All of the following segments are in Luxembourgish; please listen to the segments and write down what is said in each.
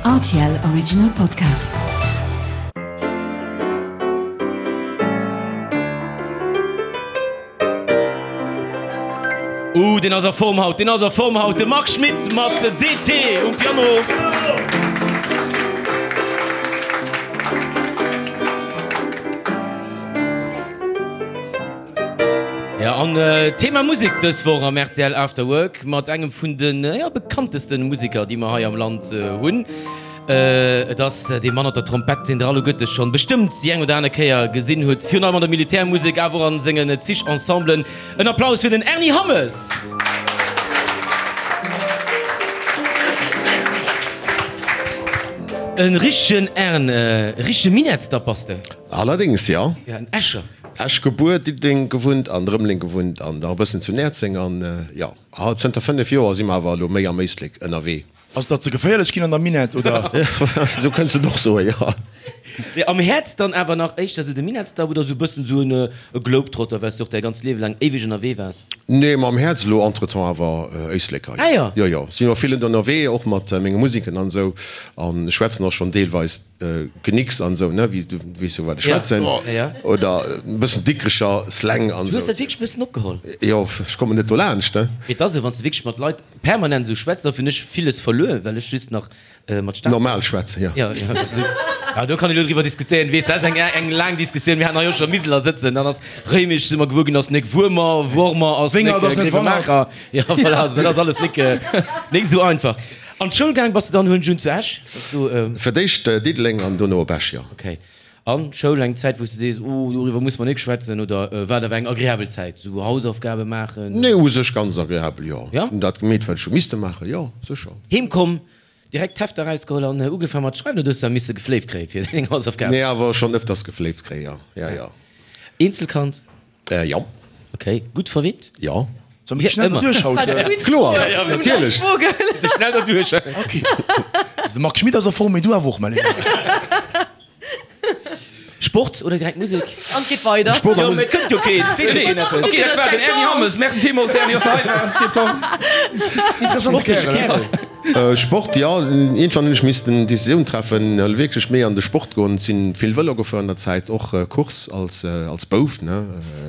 Rtl Original Podcast. Uh, deen ass a Form haut, deen ass a Form haut, de Marc Schmitt mat DT um Piano. Ja, an Thema Musek dës Woch am rtl After Work mat engem vun de ja, bekanntesten Museker, déi mer hei am Land hunn. Et ass dee Mann op der Trompett, deen der alleguerte schonn bestëmmt déi eng oder aner Kéier gesinn hutt, virun allem an der Militärmusek, awer och an sengen zig Ensemblen. En Applaus fir den Ernie Hammes! E richtegen Ern, e richtege Minettsdapp bass de. Allerdéngs, jo. Ja, en Escher. Esch gebuer, Diddeleng gewunnt an Rëmeleng gewunnt an nach e bëssen zu Näerzeng an jo, zënter 5 Joer si mer awer elo méi am Éislek ënnerwee. Ass et der ze geféierlech ginn an der Minett, oder? Esou kënns de et och soen, jo. Mee am Häerz dann awer nach éischter esou de Minettsdapp oder esou e bëssen esou e Globetrotter, well s de och däi ganzt Liewe laang éiweg ënnerwee waars? Nee, mam Häerz elo entretemps awer Éisleker, jo. Ah jo. Jo, jo, si jo vill ënnerwee, och mat menge Musiken an esou an ech schwätzen och schonn deelweis Genicks an esou, ne, wéi du weess jo wat ech schwätzen, oder e bëssen Dikrecher Slang an esou. Du hues dat wierklech e bëssen opgeholl? Jo, ech kommen net dolaanscht, ne. Mee et ass esou, wann s de wierklech mat Leit permanent esou schwätz, da hunn ech villes verluer, well ech just nach mat Stad. Normal schwätzen, jo. Jo, jo, jo, do kann een elo driwwer diskutéieren, weess, dat ass eng eng laang Diskussioun. Mir haten hei och scho Miseler sëtzen, dann ass Réimech, si mer gewuer ginn, ass nek Wuermer, Wormer ass nek Gréiwemaacher. Jo, voilà, also dat ass alles nek nek esou einfach. An d'Schoul gaang bass de dann, huelen ech un, zu Esch? Bass du. Fir d'éischt Diddeleng an dono op Esch, jo. Ok. An d'Schoul, eng Zäit wou s de sees, oh doriwwer muss mer nik schwätzen, oder war et awer eng agreabel Zäit, sou Hausaufgabe maachen? Nee, u sech ganz agreabel, jo. Ja? Ech hunn dat gemeet wat ech hu misste maachen, jo, sécher. Heem komm, direkt d'Hefter erausgeholl an ugefaang mat schreiwen, oder hues de da misse gefléift kréie fir deng Hausaufgaben? Nee, awer schonn ëfters gefléift kréie, jo, ja, jo. Eenzelkand? Jo. Ok, gutt verwinnt? Jo. Soll mir schnell derduerch haut? Kloer, natierlech. Se schnell derduerch. Ok. De Marc Schmit ass a Form, mee du awer och, mäi Léiwen. Sport oder direkt Musek? An et geet weider. Sport a Jo, mee Musek. et kënnt jo keen. Et seet jo keen eppes. Ok, dat war den Ernie Hammes. Merci villmools, Ernie, dass de hei waars. Tipptopp. Interessante Kärel, he? Sport, jo. Iergendwann hunn ech missten Decisioun treffen, wierklech méi an de Sport goen. Sinn vill Vëlo gefuer an der Zäit, och Course als als Bouf, ne,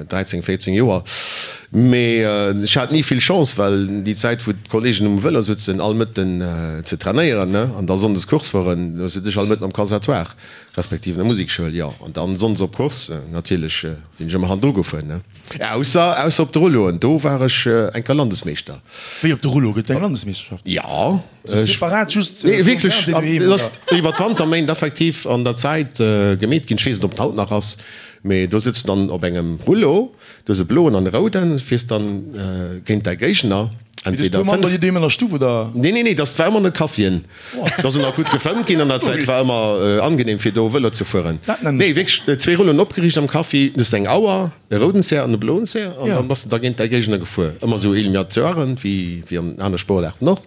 13, 14 Joer. Mee ech hat ni vill Chance, well déi Zäit wou d'Kollegen um Vëlo sutzen all Mëtten ze trainéieren, ne, an da Sonndes Course fueren, do sut ech all Mëtten am Conservatoire, respektiv an der Musekschoul, jo. An dann Sonndes op Course, natierlech sinn ech ëmmer hannendru gefuer, ne. Ausser, ausser op de Rulloen, do war ech eng Kéier Landesmeeschter. Wéi op de Rullo? Gëtt et eng Landesmeeschterschaft? Jo. Sou separat just Nee, vum wierklech, Fernsehen doheem, dat ass oder? iwwer d'Wanterméint effektiv an der Zäit gemeet ginn. Ech weess net, ob et haut nach ass, mee do sëtz de dann op engem Rullo, du hues e bloen an e rouden, fiers dann géint däi Géigner. Mee du hues puer Mann bei dir doheem an der Stuff, oder? Nee, nee, nee, dat war ëmmer an de Caféen. Do ass ëmmer gutt gefëmmt ginn an der Zäit, war ëmmer angenehm fir do Vëlo ze fueren. Nee, wierklech zwee Rulloen opgeriicht am Café, du hues eng Auer, e rouden Zär an e bloen Zär an dann bass de da géint däi Géigner gefuer. Ëmmer esou Eliminatoiren, wéi wéi an aner Sportaarten och.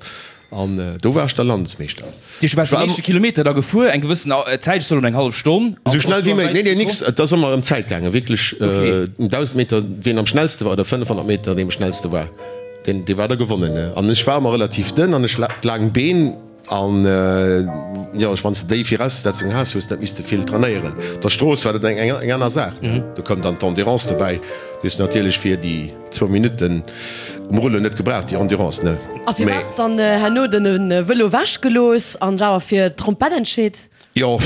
An do war ech da Landesmeeschter. Dir waars den éischte Kilometer da gefuer, eng gewëssen Zäit, ech soen elo eng hallef Stonn. Esou schnell wéi méiglech. Nee, nee, nix, et ass ëmmer ëm d'Zäit gaangen, wierklech 1.000 Meter, wien am schnellste war, oder 500 Meter, dee am schnellste war. Deen dee war da gewonnen ne. An ech war ëmmer relativ dënn an ech hat laang Been an jo ech wann s de déi Viraussetzung has hues dat misste vill trainéieren. Op der Strooss war dat eng eng aner Saach ne. Do koum dann d'Endurance dobäi. Déi hues de natierlech fir déi zwou Minutten um Rullo net gebraucht, déi Endurance ne. A firwat dann herno den Vëlo wech gelooss an dech awer fir d'Trompett entscheet? Jo,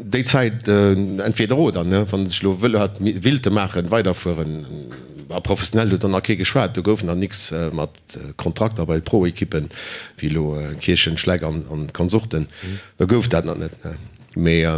déi Zäit entweder oder, ne. Wann ech elo Vëlo hätt willte maachen, weiderfueren, a professionell huet dann nach kee geschwat, do gouf nach nix mat Kontrakter bei Pro-Ekippen, wéi elo Kierchen, Schleck an Konsorten, do gouf dat nach net, ne. Mee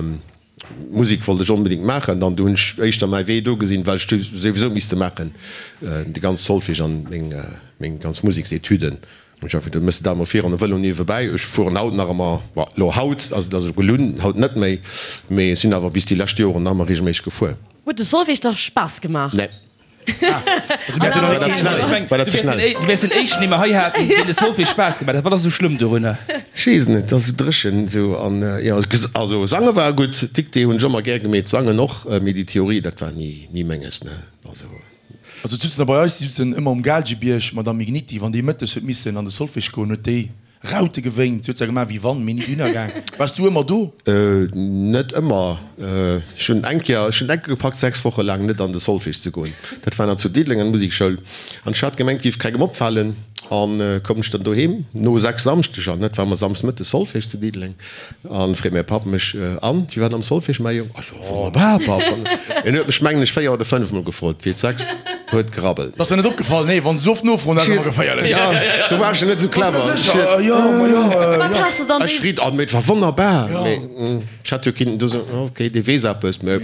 Musek wollt ech onbedéngt maachen, an du hunn ech éischter mäi Wee do gesinn, well ech souwisou misste maachen, de ganz Solfège an meng ganz Museksetüden. Ech hat geduet, mëss de dat emol virun e Vëlo niewebäi. Ech fueren haut nach ëmmer, bon, elo haut ass et also gelunn, haut net méi, mee ech sinn awer bis déi lescht Joren nach ëmmer reegelméisseg gefuer. Huet de Solfège der Spaass gemaach? Nee. War dat ze schnell? War dat ze schnell? Du wäers den éischten, dee mer hei haten, deem de Solfège Spaass gemaach huet. Wat ass esou schlëmm dorunner? Ech weess et net, et ass esou dréchen esou an, jo, also sange war gutt, Dictée hunn ech ëmmer gär gemeet, sangen och, mee déi Theorie, dat war ni, ni menges, ne, also. Also d'sutzen da bei eis, déi sutzen ëmmer um Gaalgebierg, d'Madame Igniti, wann déi mëttes huet missen an de Solfège goen, huet déi. Raute gewénkt. Si huet zwar gemaach wéi wann, mee ni dohinner gaang. Waars du ëmmer do? Net ëmmer. Ech hunn eng Kéier, ech hunn enke gepackt 6 Woche laang net an de Solfège ze goen. Dat war nach zu Diddeleng an der Musekschoul. An ech hat gemengt, et géif kengem opfalen. An koum ech dann doheem no 6 Samschdeger, net, war mer Samsdes Mëttes Solfège zu Diddeleng. An freet mäi Papp mech, An, wéi war et am Solfège, mäi Jong? Ech so, Wonnerbar, Papp. An en huet mech, mengen ech, 4 oder 5 mol gefrot, fir d'sechst huet gerabbelt. T'ass der net opgefall? Nee, wann se sou oft nofroen, dat ass ëmmer geféierlech. Jo, do war ech net sou clever. Bass de sécher? Jo, ma jo, Wat has de dann Ech riit, oh, mee et war wonnerbar. Mee ech hat jo kinnten do soen, ok, dee weess eppes, mee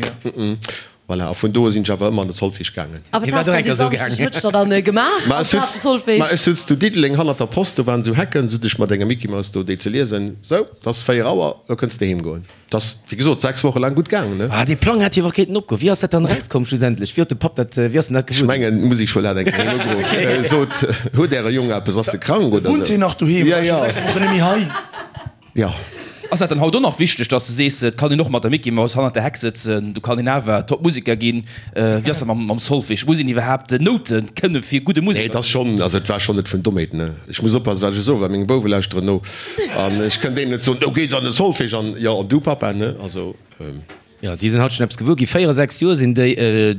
Voilà, a vun do u sinn ech awer ëmmer an de Solfège gaangen. A wat has de déi Samschdeg Mëtteg dann gemaach amplaz de Solfège? Ma ech sutz zu Diddeleng hannert der Post, do waren esou Hecken, sut ech mat enger Mickey-Maus do déi ze liesen. Sou, 't ass 4 Auer, lo kënns de heem goen. 't ass, wéi gesot, 6 Woche laang gutt gaangen, ne? Ah, dee Plang hätt jo awer kéinten opgoen. Wéi ass dat dann erauskomm schlussendlech? Wéi huet de Papp dat, wéi ass en dat Ech gewuer ginn? mengen, d'Musekschoul hat eng Kéier heen ugeruff, sot, Huet äre Jong eppes, ass e krank oder sou? Wunnt hien nach doheem? Ja, ja. War scho 6 Wochen net méi hei. Jo. Ass dat dann haut och nach wichteg, dass de sees, et kann een och mat der Micky Maus hannert der Heck sëtzen, do kann een awer top Museker ginn? Wéi ass dat mam Solfège? Muss een iwwerhaapt Noute kënne fir gudde Nee, Museker et ass ze sinn? schonn, also et war schonn net vun Dommheet, ne. Ech muss oppassen, wat ech soen, well meng Bouwe lauschteren no an ech kënnt deenen net soen, do gees an de Solfège an jo, an du Papa, ne, also. Jo, déi sinn haut schonn eppes gewuer ginn. 4, 6 Joer sinn déi.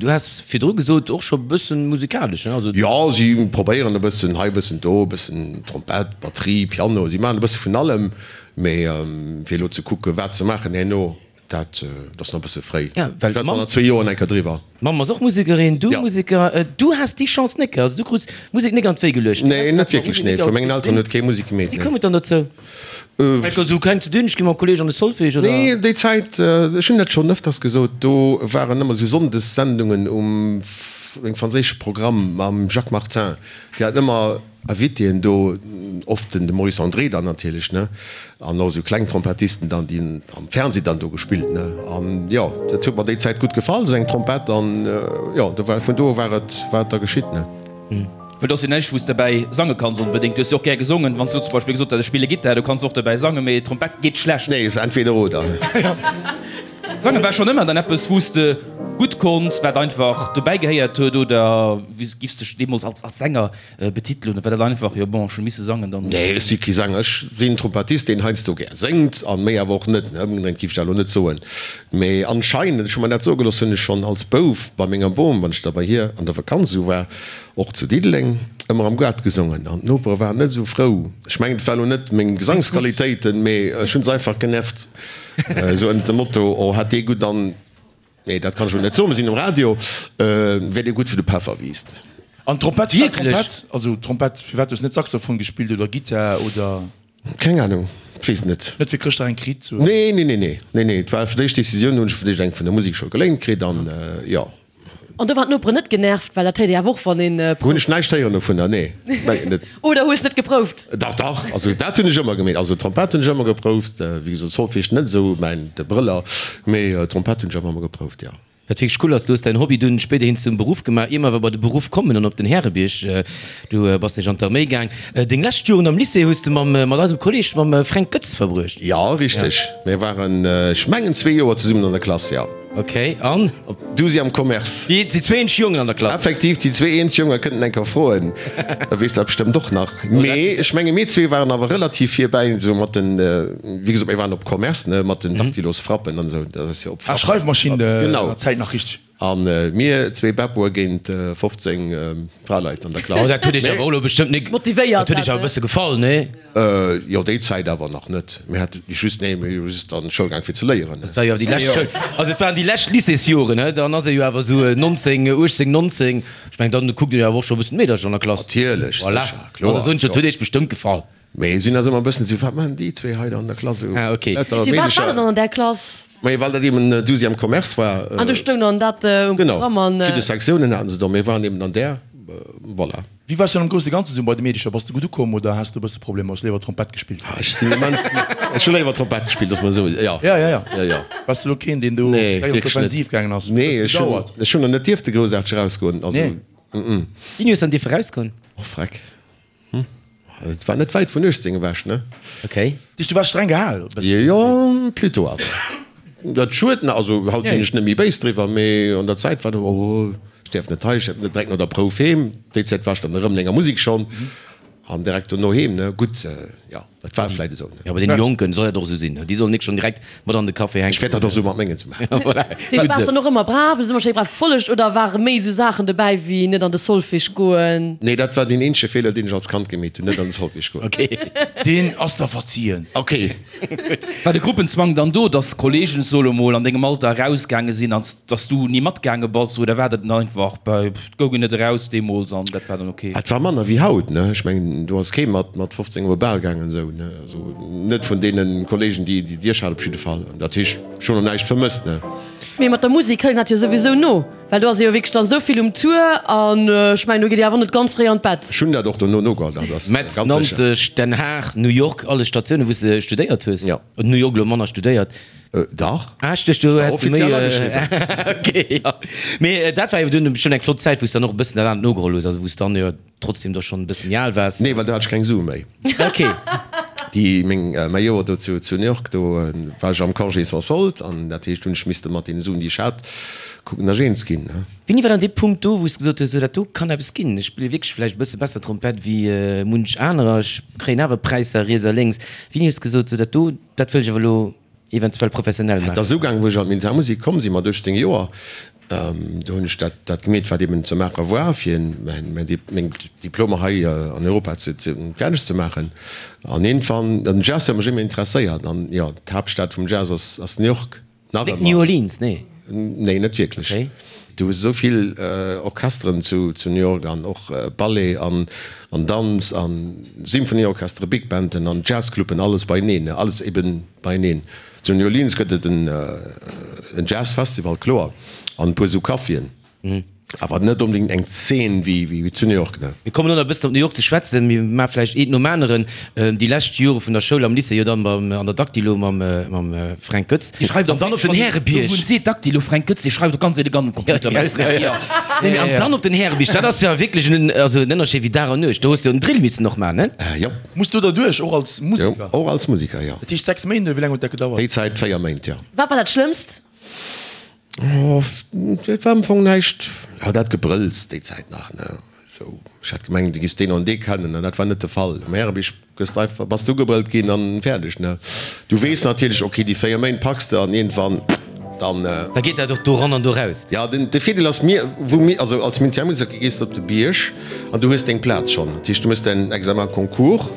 Du has virdru gesot, och scho bëssen musikalesch, ne? Also. Jo, si probéieren e bëssen hei, e bëssen do, e bëssen Trompett, Batterie, Piano. Si maachen e bësse vun allem. Mee fir elo ze kucken, wat se maachen herno, dat ass nach e bësse fréi. Ja, well Schwätze mer d'Mamm. an zwee Joer eng Kéier driwwer. D'Mamm ass och Musekerin, du Ja. Museker. Du has déi Chance net, also du krus Musek net an d'Wéi geluecht. Nee, net wierklech, nee. Vu mengen Elteren huet kee Musek gemeet, Wéi nee. koum et dann dozou? Enker esou kleng ze dünn, ech gi mam Kolleg an de Solfège, oder? Nee, déi Zäit, ech hunn dat schonn ëfters gesot, do waren ëmmer esou Sonndessendungen um engem franséische Programm mam Jacques Martin. Déi haten ëmmer Invitéen do, oft den de Maurice André dann natierlech, ne, an och esou kleng Trompettisten dann, déi hunn am Fernseh dann do gespillt, ne. An jo, dat huet mer déi Zäit gutt gefall, esou eng Trompett, an jo, do war, vun do u war et, war et da geschitt, ne. Well do ass jo näischt wou s de derbäi sange kanns onbedéngt. Du hues jo och gär gesongen. Wann s du zum Beispill gesot häss, ech spille Gittar, du kanns och derbäi sangen, mee Trompett geet schlecht. Nee, ass entweder oder. Sange war schonn ëmmer dann eppes wou s de gutt konns, wat einfach dobäi gehéiert huet, oder wéi giffs dech deemools als als Sänger betitelen, oder war dat einfach, jo bon, ech hu misse sangen dann? Nee, ech si kee Sänger. Ech sinn Trompettist, deen heiansdo gär séngt an méi awer och net. Ëmgedréint giff ech dat elo net soen. Mee anscheinend, ech hu mer dat soe gelooss, hunn ech schonn als Bouf bei menger Bom, wann ech da bei hir an der Vakanz esou war, och zu Diddeleng, ëmmer am Gaart gesongen an d'Nopere waren net esou frou. Ech mengen, et war elo net meng Gesangsqualitéiten, mee ech hunn se einfach genervt, esou ënnert dem Motto, oh hat dee gutt an, nee, dat kann ech elo net soen, mir sinn um Radio, wär dee gutt wou de Peffer wiisst. An d'Trompett, firwat Trompett? Also Trompett, firwat hues net Saxophon gespillt oder Gittar oder? Keng Ahnung, ech weess et net. Net fir Chrëschtdag eng kritt? Nee, nee, nee, nee, nee, nee, et war fir d'éischt Decisioun, hunn ech fir d'éischt eng vun der Musekschoul geléint kritt an jo. An do waren d'Noperen net genervt, well dat héiert ee awer och wann een Hunn prouft. ech näischt héieren dovunner, nee, mengen net. Oder hues net geprouft? Dach, dach, also dat hunn ech ëmmer gemeet, also Trompett hunn ech ëmmer geprouft, wéi gesot Solfège net esou mäin de Brëller, mee Trompett hunn ech awer ëmmer geprouft, jo. Wat wierklech cool ass, du hues däin Hobby dunn spéiderhin zum Beruff gemaach. Ier mer awer bei de Beruff kommen an op den Härebierg, du bass nämlech an d'Arméi gaang. Deng lescht Joren am Lycée hues de mam mat eisem Kolleeg, mam Fränk Goetz verbruecht. Jo, richteg. Mir waren, ech mengen, zwee Joer zesummen an der Klass, jo. Ok, an? Op Douzième Commerce. Déi zwee eenzeg Jongen an der Klass. Effektiv, déi zwee eenzeg Jongen, kënnt en eng Kéier froen, da weess dat bestëmmt och nach. Mee ech menge mir zwee waren awer relativ virbäi, esou mat den, wéi gesot, mir waren op Commerce, ne, mat den Daktylosfrappen an esou, dat ass jo op Frappen. Ah, Schreifmaschinn Genau. an der Zäit nach richteg. A mir zwee Beppoe géint 15 Fraleit an der Klass. Oh, dat huet iech awer och elo bestëmmt nik, Motivéiert dat huet iech dat, awer e ne? bësse gefall, nee? Jo, déi Zäit awer nach net. Mir hate just, nee, mir hu just an d'Schoul gaang fir ze léieren. Dat war jo awer déi lescht Schoul, also et waren déi lescht Lycéesjoren, he, dann ass ee jo awer esou 19, 18, 19, ech mengen, dann kuckt een jo awer och scho e bëssen d'Meedercher an der Klass. Natierlech, Voilà, sécher, kloer, also soen ech, dat jo. huet iech bestëmmt gefall. Mee sinn ass ëmmer e bëssen esou, wat maachen déi zwee hei da an der Klass esou? Ah, okay. Lauter Firwat war dat Meedercher. dann an där Klass? Mee well dat eben Douzième Commerce war. An do stoung dann dat um Genau, Programm an. verschidde Sektiounen haten se do, mir waren eben an där, voilà. Wéi waars du dann am grousse Ganze sou bei de Meedecher? Bass de gutt ukomm oder has de e bësse Problemer? Hues léiwer Trompett gespillt? Ah, ech sinn immens, ech hu léiwer Trompett gespillt, dass mer esou, jo. Ja, ja, ja. Jo, jo. Waars du elo keen, deen do Nee, gläich op wierklech net. d'Offensiv gaangen ass? Nee, Huet ech hunn, gedauert? ech hunn der net dierfte groussaarteg erausgoen, also, Nee. mm. Wéini hues de dann dierfe rausgoen? Oh, freck. Hm, et war net wäit vun 18 ewech, ne? Okay. Dich, du waars streng gehal e bëssen? Jo, plutôt awer. Dat schued, ne? Also haut sinn ech net méi béis driwwer, mee an der Zäit war dat, oh, ech däerf net hei, ech däerf net direkt no der Prouf heem. Déi Zäit war ech dann erëm an enger Musek schonn an direkt dono heem, ne? Gutt, jo. Dat war vläit esou, ne? Jo, bei deene Jonken soll dat och esou sinn, déi sollen nik schonn direkt mat an de Café hänken. Ech wäert dat och esou mat mengen ze maachen. Voilà. Deeg waars dann och ëmmer brav, hues ëmmer schéi brav gefollegt oder ware méi esou Saachen dobäi wéi net an de Solfège goen? Nee, dat war deen eenzege Feeler, deen ech als Kand gemeet hunn, net an de Solfège goen. Ok. Deen ass der verzien. Ok. War de Gruppenzwang dann do, dass Kollegen, soe mol, an dengem Alter erausgaange sinn an dass du ni matgaange bass oder war dat dann einfach bei, et goung een net eraus deemools an dat war dann ok? Et war manner wéi haut, ne? Ech mengen, do ass kee mat mat 15 op e Bal gaangen esou, ne? Also net vun deene Kollegen, déi déi ech hat op jidde Fall. Dat heescht, ech hunn och näischt vermësst, ne? Mee mat der Musek hëlt een dat jo souwisou no, well do ass ee jo wierklech dann esou vill um Tour an ech mengen, do geet ee awer net ganz fréi an d'Bett. Ech hunn dat och dono nogeholl, dat ass Metz, ganz sécher. Nanzeg, Den Haag, New York, alles Statiounen, wou s de studéiert hues. Jo. New York elo manner studéiert. Dach. Ah, ech duecht, du War häss du méi. offiziell ageschriwwen. Ok, jo. Mee dat war jo dunn bestëmmt eng flott Zäit, wou s de dann och e bëssen dat anert nogeholl hues, also wou s dann jo trotzdem da schonn e bësse méi al waars. Nee, well do hat ech keng Sue méi. Ok. Déi meng, mäi Joer do zu, zu New York, do war ech am Congé sans solde an dat heescht, hunn ech misste mat deene Suen, déi ech hat, kucken, datt ech eens ginn, ne. Wéini war dann dee Punkt do, wou s de gesot hues, sou dat do kann eppes ginn, ech spille wierklech vläicht e bësse besser Trompett wéi munch anerer, ech kréien awer Präisser riets a lénks. Wéini hues de gesot, sou dat do, dat wëll ech awer elo eventuell professionell Et maachen? ass ugaangen, wou ech an d'Militärmusek komm sinn, mat 18 Joer. Do hunn ech dat, dat gemeet, wat eben ze maache war, fir mäin, meng Diplomer hei an Europa ze, ze, fäerdeg ze maachen. An iergendwann, den Jazz huet mech ëmmer interesséiert an jo, d'Haaptstad vum Jazz ass, ass New York. Nach Net New Orleans, nee? Nee, net wierklech. Okay. Du hues esou vill Orchesteren zu New York an och Ballet an Danz an Symphonieorchestere, Big Banden an Jazzcluben, alles beieneen, alles eben beieneen. Zu New Orleans gëtt et en Jazzfestival, kloer, an e puer esou Caféen. Awer net onbedéngt eng Zeen wéi zu New York, ne? Mir kommen elo nach e bëssen op New York ze schwätzen. Mir maache vläicht eent nom aneren. Déi lescht Jore vun der Schoul am Lycée, jo dann beim, an der Dactylo mam, mam Fränk Goetz. Dee schreift An dann op den Härebierg. Do wou seet Dactylo, Fränk Goetz, dee schreift och ganz elegant um Computer, mäi Fränk, jo. Nee, mee an dann op den Härebierg, dat ass jo wierklech en, also en Ënnerscheed wéi Dag an Nuecht. Do hues de jo en Drill missen och maachen, ne? Jo. Muss do derduerch, och als Museker? Jo, och als Museker, jo. Dat heescht 6 Méint, oder wéi laang huet dat gedauert? Déi Zäit 4 Méint, jo. Wat war dat Schlëmmst? Oh, et war am Fong näischt. Jo, dat Gebrëlls déi Zäit nach, ne? Sou, ech hat gemengt, du giffs deen an dee kennen, an dat war net de Fall. Um Härebierg gëss de einfach, bass de ugebrëllt ginn an fäerdeg, ne? Du weess natierlech, ok, déi 4 Méint packs de an iergendwann dann. Da geet dat och do ran an do raus. Jo, den, de Virdeel ass, mir, wou mir, also als Militärmuseker gees de op de Bierg an du hues deng Plaz schonn. Dat heescht, du méchs däin Examen concours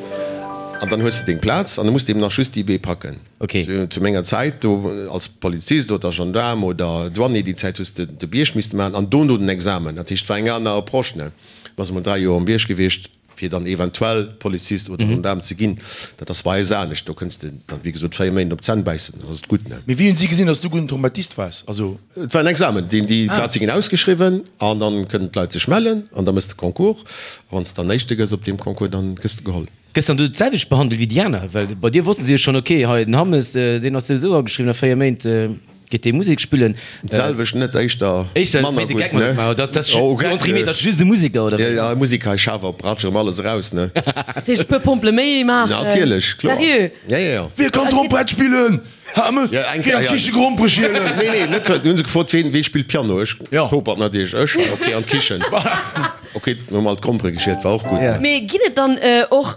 an dann hues de deng Plaz an da muss de eben nach just déi B packen. Ok. Zu menger Zäit do als Polizist oder Gendaarm oder Douanier, déi Zäit hues de de Bierg misste maachen an dono den Examen. Dat heescht, et war eng aner Approche, ne. Du bass emol 3 Joer um Bierg gewiescht, fir dann eventuell Polizist oder Gendaarm ze ginn. Dat ass bei eis anescht. Do kënns de dann, wéi gesot, 4 Méint op d'Zänn bäissen, dann ass et gutt, ne. Mee wéi hunn si gesinn, datt s du gudden Trompettist waars? Also. Et war en Examen, deen, déi Plaze ginn ausgeschriwwen an dann kënnen d'Leit sech mellen an da méchs de Concours. A wann s de dann Éischte gëss op deem Concours, dann gëss de geholl. Gëss dann du d'selwecht behandelt wéi déi aner? Well bei dir wosste se jo schonn, ok, hei den Hammes, deen ass souwisou ageschriwwen, a 4 Méint geet dee Musek spillen. D'selwecht net, éischter Éischter manner méi de gutt, Geck mat ne? gemaach, dat ass Oh, sou entre guillemets, dat ass just e Museker, oder Ja, wéi? ja, e Museker, hei schaf op, ratsch erëm alles eraus, ne? Dat heescht e puer Pompele méi maachen? Natierlech, kloer. Sérieux? Ja, ja, ja. Wie kann Trompett spillen? Hammes, Ja, eng geh an Kéier, ja. d'Kiche Grompere schielen! Nee, nee, net, du hunn se gefrot, ween, wee spillt Piano? Ech, Ja. Topert natierlech, ech, ok, an d'Kichen. Ok, hu mer alt d'Grompere geschielt, war och gutt, ne? Mee ginn et dann och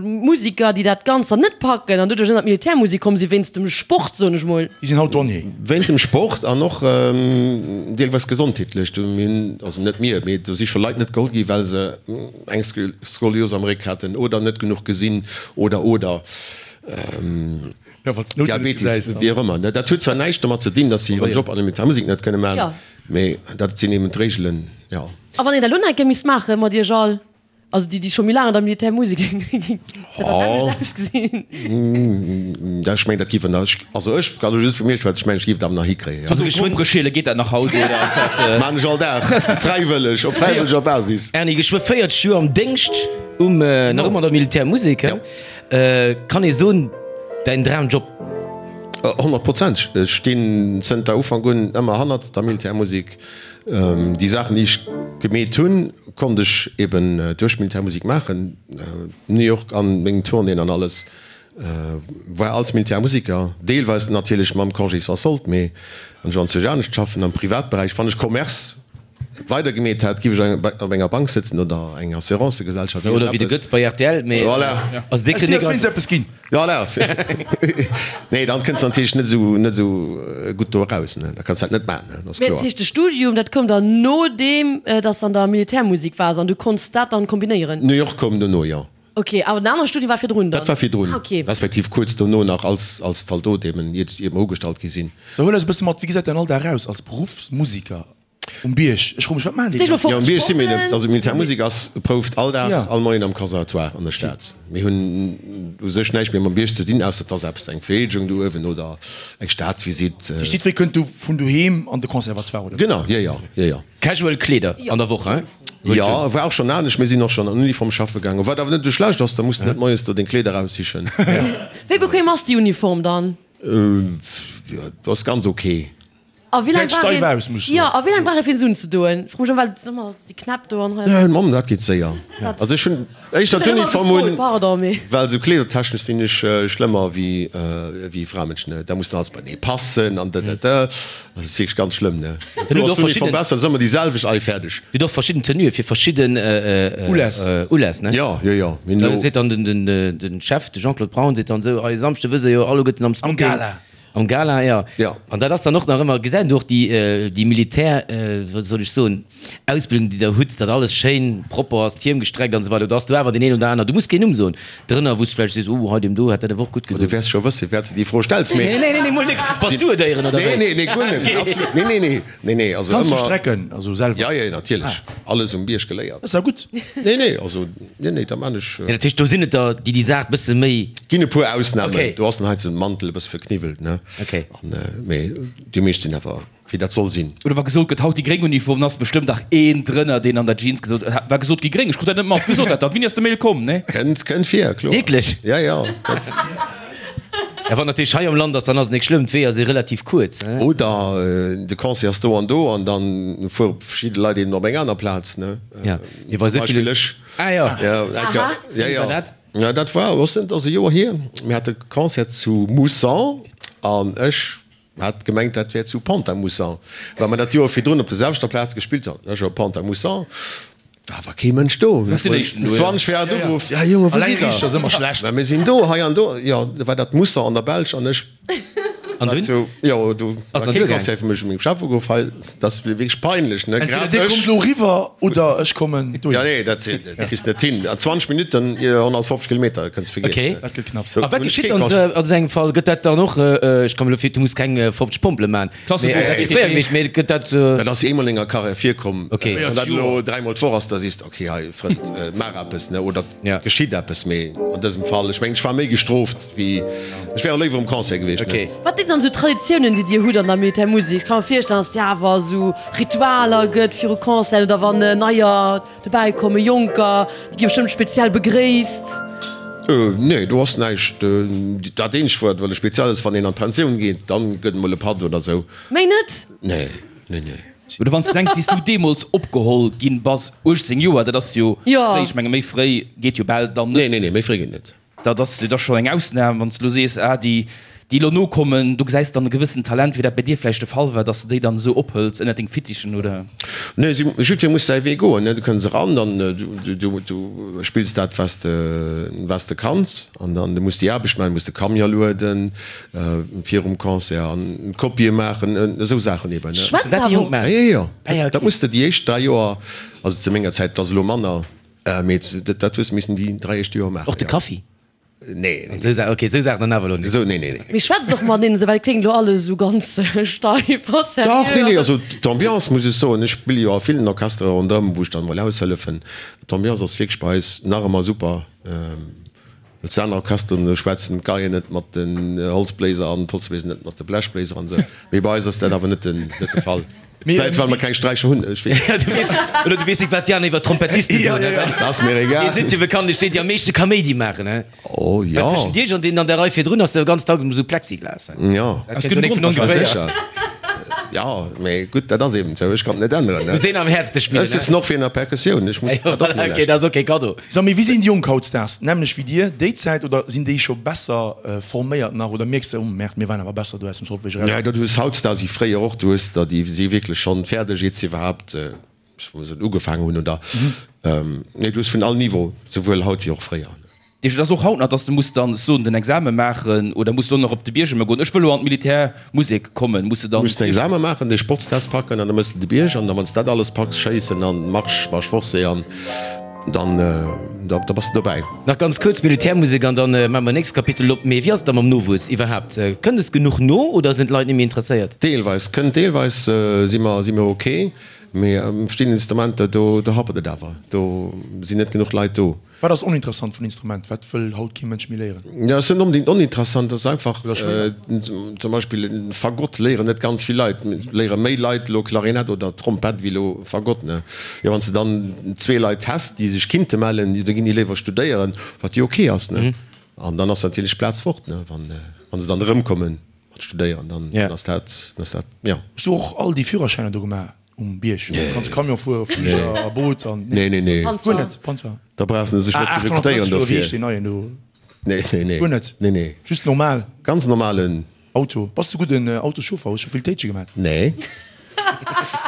Musiker, déi dat Ganzt dann net packen an doduerch ënnert d'Militärmusek komm sinn, wéinst dem Sport, soen ech mol? Déi sinn haut Douanier. Wéint dem Sport an och deelweis gesondheetlech. Do mir hunn, also net mir, mee do si scho Leit net geholl gi well se eng Skolios am Réck haten oder net genuch gesinn oder oder. Diabetes, wéi och ëmmer. Dat huet zwar näischt domat ze dinn, datt si hiren Job an der Militärmusek net kënne maachen, mee dat sinn eben d'Reegelen, jo. A wann een dat elo nach eng Kéier misst maache mat iech all, also déi, déi scho méi laang an der Militärmusek sinn, wéi géing dat dann anescht ausgesinn? Ech mengen, dat géif een nach, also ech kann elo just vu mir schwätzen, ech mengen, ech géif et awer nach hikréien, jo. Also geschwënn Grompere geet dat nach haut, oder ass dat? Maan ech all Dag, fräiwëlleg, op fräiwëlleger Basis. Erny, geschwë 40 Joer am Déngscht um, nach ëmmer an der Militärmusek, he? Kann ee soen, däin Dramjob? Honnertprozenteg. Ech stinn zënter Ufank un ëmmer hannert der Militärmusek. Déi Saachen, déi ech gemeet hunn, konnt ech eben duerch d'Militärmusek maachen. New York an meng Tournéeën an alles war als Militärmuseker, deelweis natierlech mam Congé sans solde, mee wann ech anzwousch anescht schaffen am Privatberäich, wann ech Commerce. weider gemeet hätt, giff ech op enger Bank sëtzen oder eng Assurancegesellschaft. Oder wéi de Götz bei rtl, mee voilà. Also dee kritt Aus dir ass wéinst eppes ginn. Voilà. Nee, dann kënns de natierlech net esou, net esou gutt do eraus, ne. Da kanns de dat net maachen, ne, dat ass Mee kloer. dat heescht, de Studium, dat koum dann nodeem dass de an der Militärmusek waars an du konns dat dann kombinéieren? New York koum dono, jo. Ok, awer den anere Studium war virdrun dann? Dat war virdrun, Ah, ok. respektiv kuerz dono nach als, als Zaldot eben, iert, iert mer ugestallt gi sinn. So, huel eis e bësse mat, wéi gesäit däin Alldag aus als Beruffsmusiker um Bierg? Ech froe mech, wat maachen déi Stell dann? dir Jo, um mol Bierg si mir net. vor, Also d'Militärmusek ass prouft all Dag, Ja. all Moien am Conservatoire an der Stad. Mir hunn u sech näischt méi mam Bierg ze dinn, ausser et ass eppes, eng Vereedegung do uewen oder eng Staatsvisitt. Déi steet, wéi kënnt du vun doheem an de Conservatoire, oder? Genau, jo, jo, jo, jo. Casual Kleeder an der Woch, hein? Jo, war och schonn anescht. Mir sinn och schonn an Uniform schaffe gaangen, wat awer net esou schlecht ass, da muss de net moies do deng Kleeder eraussichen. Wéi bequem ass déi Uniform dann? Jo, ass ganz ok. A wéi laang Gesäit brauch steif een, aus, muss ech jo, soen. a wéi laang brauch ee fir se unzedoen? Fro mech ëmmer, well et ass ëmmer déi Knäpp do an hei. Mamm, dat geet séier. Also ech hunn éischter Ech hunn ëmmer d'Uniform gefrot, un, pardon, mee. well esou kleedertechnesch sinn ech schlëmmer wéi wéi Framënschen, ne. Da muss dann alles beienee passen an dëdëdë. Dat ass wierklech ganz schlëmm, ne. Dann hutt Du och ass d'Uniform verschidden. besser, dat ass ëmmer déi selwecht, allez, fäerdeg. Dir hutt och verschidden Tenuë fir verschidden Uläss. Uläss, ne? Jo, jo, jo. Mir hunn Da elo. seet dann den den den Chef, de Jean-Claude Braun, seet dann esou, Ei, e Samschde wësse jo alleguerten am Am Smoking. Gala. Am Gala, jo. Jo. An dat ass dann och nach ëmmer, gesäit een och déi, déi Militär, wéi soll ech soen, Ausbildung, déi Der hutt, datt alles schéin propper ass, d'Hiem gestreckt an esou weider. Do ass do awer deen een oder aner, du muss keen Numm soen, drënner, wou s de vläicht sees, oh, hei deem do hätt dat awer och gutt Du gedoen. wäers scho wëssen, firwat s de déi Fro stells, mee. Nee, nee, nee, mol net. Bass du et éieren, oder Nee, wéi? nee, nee, guer net. Absolut. Nee, nee, nee. Nee, nee, also Kanns du ëmmer. strecken, also selwer? Ja, ja, natierlech. Alles um Bierg geléiert. Dat ass ja gutt. Nee, nee, also, nee, nee, da man ech. Nee, dat heescht, do sinn et der, déi déi Saach bësse méi. Ginn e puer Ausnamen. Okay. Do ass dann heiansdo den Mantel e bësse verkniwwelt, ne? Okay. An, mee déi meescht sinn awer, wéi dat soll sinn. Oder wa gesot gëtt, haut déi gréng Uniform, dann ass bestëmmt dach een drënner, deen an der Jeans gesot huet, war gesot gi gréng, ech krut dat net mat. Wie sot dat dann? Wéini ass de Mail komm, ne? Kënnt, kënnt vir, kloer. Wierklech? Ja, ja, dat. Ja, wann natierlech hei am Land ass, dann ass et nik schlëmm, d'Weeër si relativ kuerz, ne? Oder de Concert ass do an do an dann fuere verschidde Leit eben op eng aner Plaz, ne? Ja, mee bei Zum esou ville. Beispill ech. Ah jo. Ja, eng Kéier. Aha. Ja, Wéini ja. war dat? Ja, dat war, was net, ass e Joer hier. Mir hate Concert zu Moussan an ech hat gemengt, dat wär zu Pont-à-Mousson, well mer dat Joer virdrun op der selwechter Plaz gespillt haten. Ech op Pont-à-Mousson, war awer kee Mënsch do. Du warst den Éischten do, ja. 20 vir hat ugeruff, Ja Jongen, wou sidd der? Mä mir sinn do, hei an do. Jo, da war dat Mousson an der Belsch an ech An dunn? Zu, jo, do Ass war dann kee duergaangen? Concert fir mech. Ech hu mengem Chef ugeruff, hei, dat ass wierklech peinlech, ne? Entweder Grad dir ech. kommt elo eriwwer oder ech kommen dohin. Ja, nee, dat dat kriss de net hin. An 20 Minutten 150 Kilometer, dat kënns de vergiessen. Okay. Dat gëtt knapps. A wat geschitt dann esou an esou engem Fall? Gëtt dat dann och, ech kann mir elo vir, du muss keng 50 Pompele man, Klassebuch, mee dat wier fréier gewiescht, mee gëtt dat. Dat ass eemol an enger Karriär virkomm. Okay. Wann dat elo dräimol d'Woch ass, da sees de, okay, hei Frënd, maach eppes, ne, oder Ja. geschitt eppes. Mee an dësem Fall, ech mengen, ech war méi gestrooft wéi, ech wär och léiwer um Concert gewiescht, ne. Okay. Wat sinn dann esou Traditiounen, déi Dir hutt an der Militärmusek? Ech ka mer virstellen, dass et jo awer esou Ritualer gëtt viru Concerten oder wann Neier dobäi kommen, Jonker, déi gi bestëmmt speziell begréisst. Nee, do ass näischt. Dat eenzegt, wat elo speziell ass, wann een an d'Pensioun geet, dann gëtt emol e Patt oder esou. Méi net? Nee, nee, nee. Oder wann s de denks, wéi s du deemools opgeholl ginn bass, 18 Joer, dat ass jo fréi, ech menge méi fréi geet jo bal dann net. Nee, nee, nee, méi fréi geet net. Dat ass jo da scho eng Ausnam, wann s de elo sees, ah, déi, déi elo nokommen, do gesäis de dann e gewëssent Talent, wéi dat bei dir vläicht de Fall war, dass de déi dann esou ophëls ënnert deng Fittichen, oder? Nee, si, jiddweree muss säi Wee goen, ne. Du kënns eran, dann du, du, du spills dat, wat s de, wat s de kanns, an dann du muss déi Aarbecht maachen, du muss de Camion lueden virum Concert an Kopië maachen, esou Saachen eben, ne. Schwätzt Dat déi awer Jonk och. maachen? Jo, jo, jo. Ah ja, Dat okay. muss de déi éischt 3 Joer, also zu menger Zäit, et ass elo manner, mee dat hues de missen déi 3 éischt Joer maachen, Och de jo. Kaffi? Nee, nee, Esou Sa-, okay, esou Saachen dann awer elo net. Esou, nee, nee, nee. Mee schwätzt och mateneen esou, well et kléngt elo alles esou ganz steif a seriö. Dach, nee, nee, also d'Ambiance, muss ech soen, ech spille jo a villen Orchestere ronderëm, wou ech dann emol aushëllefen, d'Ambiance ass wierklech bei eis nach ëmmer super. Well zu aner Orchesteren, do schwätzen d'Geien net mat den Holzbléiser an d'Holzbléiser net mat de Blechbléiser an esou. Mee bei eis ass dat awer net den, net de Fall. Vläit well mer keng Sträicher hunn, ech weess net. Du weess, oder du weess net, wat déi aner iwwer Trompettiste soen, ne? Dat ass mir egal. Déi sinn jo bekanntlech déi, déi am meeschte Kaméidi maachen, he? Oh jo. Well tëschent iech an deenen an der Rei virdrun ass jo ganz dacks esou Plexiglas, he? Jo. Dat kënnt jo net vun ongeféier. Sécher. Jo, mee gutt, dat ass eben esou. Ech kann et net änneren, ne? Muss een am häertste spillen, Ech sëtzen och virun der Perkussioun, ech muss dat och Voilà, okay, dat ass och kee Kaddo. Sag mee, wéi sinn déi Jonk hautdesdaags? Nämlech wéi dir déi Zäit oder sinn déi scho besser forméiert nach oder mierks de, oh Merde, mir waren awer besser do aus dem Solfège eraus? Nee, du hues hautdesdaags wéi fréier och, du hues der déi si wierklech schonn fäerdeg, iert se iwwerhaapt. ech wëll soen ugefaangen hunn oder, nee du hues vun all Niveau, souwuel haut wéi och fréier. Deesch, et ass och haut nach, dass de muss dann soen den Exame maachen oder muss du och nach op de Bierg ëmmer goen, ech wëll elo an d'Militärmusek kommen, muss de dann. Muss den Exame maachen, de Sportstest packen an da mëss de de Bierg an da wann s de dat alles packs, schéissen an Marsch, Marche forcée an dann da bass de dobäi. Nach ganz kuerz Militärmusek an dann maache mer nächst Kapitel op. Mee wéi ass et da mam Nowuess iwwerhaapt? Kënnt es genuch no oder sinn d'Leit net méi interesséiert? Deelweis kënnt, deelweis si mer si mer ok, mee verschidden Instrumenter do do happert et awer, do sinn net genuch Leit do. Wat ass oninteressant vun Instrument? Wat wëll haut kee Mënsch méi léieren? Jo, ass net onbedéngt oninteressant, ass einfach, zum Beispill en Fagott léieren net ganz vill Leit, léiere méi Leit elo Klarinett oder Trompett wéi elo Fagott, ne? Jo, wann s de dann zwee Leit häss, déi sech kinnte mellen, jo da ginn déi léiwer studéieren, wat jo ok ass, ne? An dann ass natierlech d'Plaz fort, ne, wann se dann erëmkommen mat studéieren, dann ass dat, ass dat, jo. Hues du och all déi Führerschäiner do gemaach? Um Bierg kanns du Camion fueren, Fliger a Boot an. Nee, nee, nee. Guer net, Panzer. Da brauchs de sech net ze rekrutéieren dofir. Wéi heescht deen neien do? Nee, nee, nee. Guer net? Nee, nee. Just normal? Ganz normalen. Auto. Bass du gudden Autoschauffer? Hues scho vill Téitsche gemaat? Nee.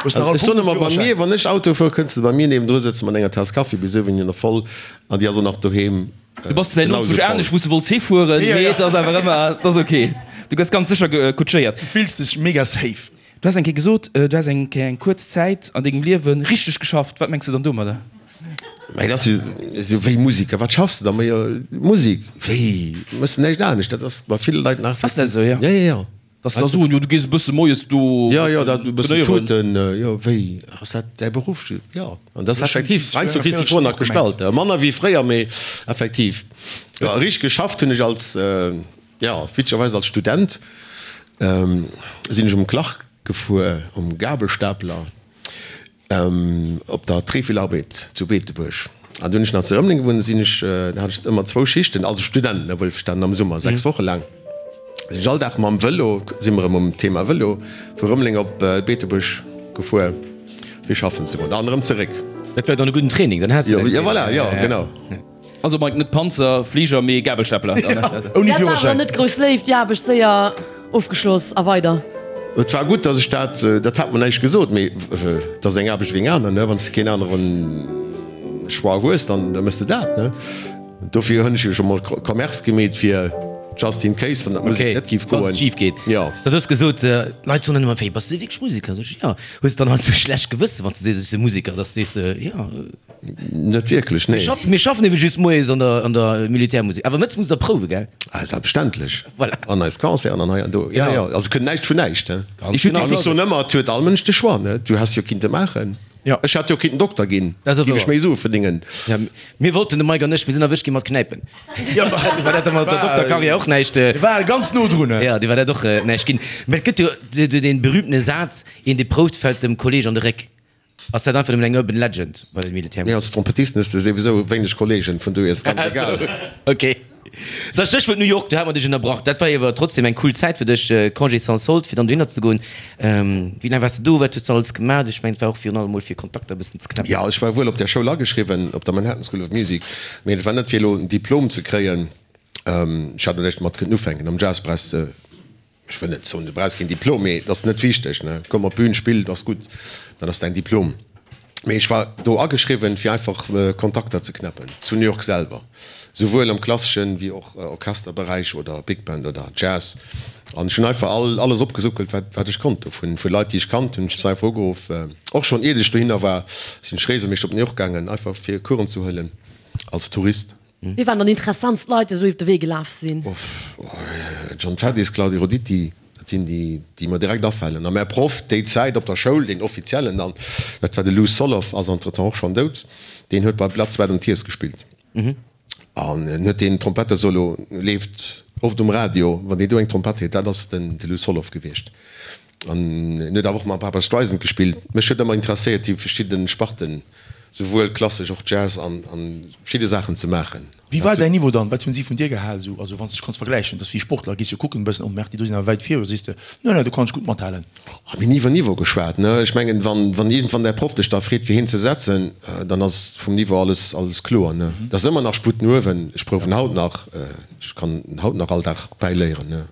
Hues nach all Ech soen ëmmer, bei mir, wann ech Auto fuer, kënns de bei mir niewendru sëtzen mat enger Taass Kaffi, bis uewen hin nach voll an déi ass och nach doheem. Du bass zwar elo zwousch anescht wou s de wollts hifueren, mee et ass awer ëmmer, et ass ok. Du gëss ganz sécher kutschéiert. Du fills dech mega safe. Du has eng Kéier gesot, du häss eng Kéier eng kuerz Zäit an dengem Liewe richteg geschafft. Wat mengs du dann domadder? Mä dat ass jo esou wéi Musiker. Wat schaffs de da? Ma jo, Musek. Wéi? Méchs de näischt anescht? Dat ass bei ville Leit nach. Ass dat esou, jo? Jo, jo, jo. Dass se da soen, jo, du gees e bësse moies do Jo, jo, dat e bëssen tuten. Jo, wéi? Ass dat däi Beruff? Jo. An dat ass effektiv, heiansdo kriss de d'Fro nach gestallt. Manner wéi fréier, mee effektiv. Jo, richteg geschafft hunn ech als. Jo, witzegerweis als Student sinn ech um Clark gefuer, um Gabelstapler op der Trefilarbed zu Beetebuerg. An du hunn ech nach zu Rëmeleng gewunnt, sinn ech, da hat ech ëmmer zwou Schichten, also Student, ne, wuelverstanen, am Summer, 6 Woche laang, sinn ech all Dag mam Vëlo, si mer erëm um Thema Vëlo, vu Rëmeleng op Beetebuerg gefuer, fir schaffen ze goen an erëm zeréck. Dat war dann e gudden Training, dann has du däin. Jo, voilà, jo, genau. Also Mike, net Panzer, Fliger, mee Gabelstapler. Ouni Dat war Führerschäin. net grouss Léift, déi Aarbecht séier ofgeschloss a weider. Et war gutt, dass ech dat, dat hat mer näischt gesot, mee et ass eng Aarbecht wéi eng aner, ne, wann s de keen anere Choix hues, dann da méchs de dat, ne. Dofir hunn ech jo scho mol Commerce gemeet, fir just in case, wann dat Musek net géif goen. Wann et schif geet. Jo. Du hues gesot, d'Leit soen dann ëmmer, wéi, bass du wierklech Museker? Sot ech, jo. Hues de dann halt sou schlecht Gewëssen, wann s du sees, ech si Museker, dass du sees, jo. Net wierklech, nee. Mir schaffen ebe just moies an der, an der Militärmusek. Awer mëttes musst der prouwen, gell? Ah, selbstverständlech. Voilà. An eis Concerten an hei an do. Ja, ja. Also kënnt näischt vun näischt, he. Ganz genau. An ech soen ëmmer, et huet all Mënsch de Choix, ne? Du häss jo kinnte maachen. Ja. Ech hätt jo kinnten Dokter ginn. Dat ass Géif ech wouer. méi Sue verdéngen. Ja, mir wollten, de Mike an ech, mir sinn erwëscht gi mat Knäipen. Ja, War dat da mat der Dokterkarriär och näischt? War ganz no drun, he. Ja, déi war dat och näischt ginn. Mä et gëtt jo dee berühmtene Saz, Een, dee prouft, fält dem Kolleg an de Réck. Ass dat einfach nëmmen eng Urban Legend bei den Militär? Nee, als Trompettisten hues de souwisou wéineg Kollegen, vun dohier ass et ganz egal. Ok. Sou, Stéchwuert New York, do hat mer dech ënnerbrach. Dat war jo awer trotzdem eng cool Zäit fir dech, Congé sans solde, fir dann dohinner ze goen. Wéi laang waars de do? Wat hues de alles gemaach? Ech mengen, et war och virun allem mol fir Kontakter e bëssen ze knäppen. Jo, ech war wuel op där Schoul ageschriwwen, op der Manhattan School of Music, mee et war net fir elo en Diplom ze kréien. Ech hat och näischt domat kënnen ufänken. Am Jazz brauchs de Ech wëll net soen, du brauchs keen Diplom, mee et ass net wichteg, ne? Komm op d'Bün, spill, ass gutt, dat ass däin Diplom. Mee ech war do ageschriwwen, fir einfach Kontakter ze knäppen zu New York selwer, souwuel am klasseschen wéi och Orchesterberäich oder Big Band oder Jazz. An ech hunn einfach all alles opgesuckelt, wat wat ech konnt do vun vu Leit, déi ech kannt hunn. Ech se einfach ugeruff, och schonn iert ech dohinner war, sinn ech regelméisseg op New York gaangen, einfach fir Coursen ze huelen als Tourist. Wie waren dann interessantst Leit, déi do iwwer de Wee gelaf sinn? John Faddis, Claudio Roditi, dat sinn déi, déi mer direkt afalen. A mäi Proff déi Zäit op der Schoul, deen offiziellen dann, dat war de Lou Soloff, ass entretemps och schonn dout, deen huet bei Blood, Sweat and Tears gespillt. An en huet deen Trompettesolo, leeft oft um Radio, wann deen do eng Trompett huet, dat ass den de Lou Soloff gewiescht. An en huet awer och mam Barbra Streisand gespillt. Mech huet ëmmer interesséiert déi verschidden Sparten, souwuel klassesch och Jazz an verschidde Saachen ze maachen. Wéi war däin Niveau dann? Wat hunn si vun dir gehal esou? Also wann s de dech kanns vergläichen, dass wéi Sportler, gees jo kucken e bëssen, oh Merde, déi do sinn awer wäit vir, oder sees de, no no, do kann ech gutt mathalen? Oh, mir hunn ni iwwer Niveau geschwat, ne. Ech mengen, wann wann iergendwann däi Proff dech da freet fir hien ze setzen, dann ass vum Niveau alles alles kloer, ne. Et ass ëmmer nach Sputt no uewen. Ech prouwen haut nach, ech kann haut nach all Dag bäiléieren, ne.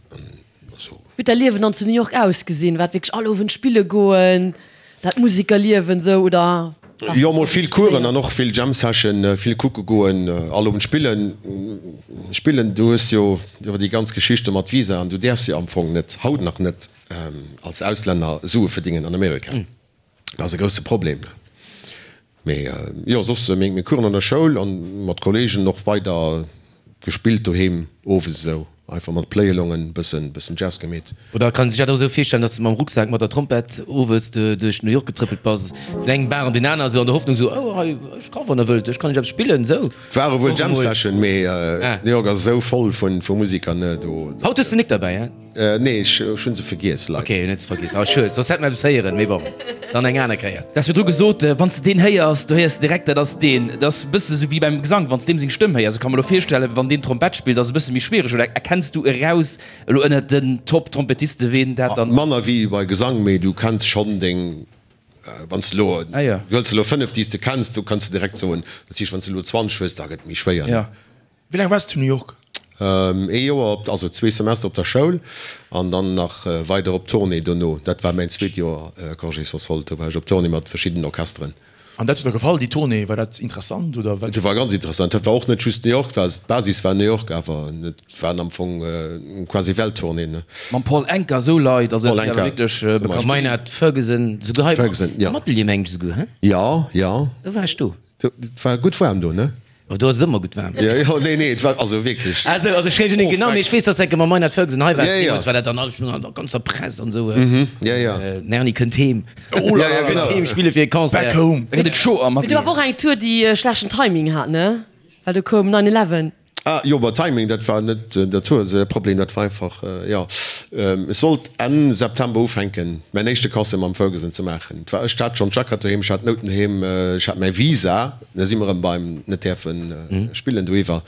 Wéi huet däi Liewen dann zu New York ausgesinn? War et wierklech all Owend spille goen, dat Musikerliewen esou, oder? Jo, mol vill Coursen an och vill Jam Session, vill kucke goen, all Owend spillen. Spillen, du hues jo iwwer déi ganz Geschichte mat Visa an du däerfs jo am Fong net, haut nach net, als Auslänner Sue verdingen an Amerika. Dat ass e grousse Problem. Mee jo, soss meng meng Coursen an der Schoul an mat Kollegen och weider gespillt doheem owes esou einfach mat Play-Alongen bëssen bëssen Jazz gemeet. Oder kann een sech dat och esou virstellen, dass de mam Rucksak mat der Trompett owes duerch New York getrëppelt bass, vun engem Bar an deen aner, esou an der Hoffnung esou, oh hei, ech ka wann der wëllt, ech kann iech eppes spillen, esou? Ware wuel Jam Session, mee New York ass esou voll vu Musiker, ne, do. Haut hues de nik derbäi, hein? Nee, ech hunn se vergiess, leider. Ok, hun et vergiess. Oh schued, soss hätt mer eppes héieren, mee bon, dann eng aner Kéier. Du has virdru gesot, wann s de deen héiers, do héiers de direkt, dat ass deen. Dat ass e bësse sou wéi beim Gesang, wann s deem seng Stëmm héiers. Ech ka mer elo virstellen, wann deen Trompett spillt, ass e bësse méi schwiereg. Oder erkenns du eraus elo ënnert den Top-Trompettiste ween dat dann. Manner wéi bei Gesang, mee du kenns schonn deng, wann s de elo, du hëls elo 5 déi s de kenns, do kanns de direkt soen, dat heescht wann s de elo 20 hues, da gëtt et méi schwéier. Wéi laang waars de zu New York? Ee Joer op, also zwee Semester op der Schoul an dann nach weider op Tournée dono. Dat war mäin zweet Joer Congé sans solde, do war ech op Tournée mat verschiddenen Orchesteren. An dat huet der gefall, déi Tournée? War dat interessant oder wat? Dat war ganz interessant. Dat war och net just New York, war d'Basis war New York, awer et waren am Fong quasi Welttournée, ne. Mam Paul Anka, esou Leit, also dat sinn awer wierklech bekannt. Maynard Ferguson, souguer hei am Atelier mengen ech souguer, he? Jo, jo. Do war ech do. Et war gutt waarm do, ne? Oh, do ass et ëmmer gutt waarm. Jo, jo, nee, nee, et war also wierklech. Also, also ech weess net genau, mee ech weess, dass enke mam Maynard Ferguson hei war. Ja, ja. Deemools war dat dann alles schon an der ganzer Press an esou. Mhm, ja, ja. Den Erny kënnt heem. Oh la la, genau. Kënnt heem spille fir e Concert. Back home. Da gëtt et chaud am Mee do war awer och eng Tour, déi e schlechten Timing hat, ne? Well do koum 9 Eleven. Ah jo, ma Timing, dat war net der Tour säi Problem, dat war einfach, jo, ech sollt Enn September ufänken, mäin éischte Concert mam Ferguson ze maachen. Et war, ech hat schonn d'Jackett doheem, ech hat d'Nouten doheem, ech hat mäi Visa, da si mer erëm beim net däerfe spillen doiwwer.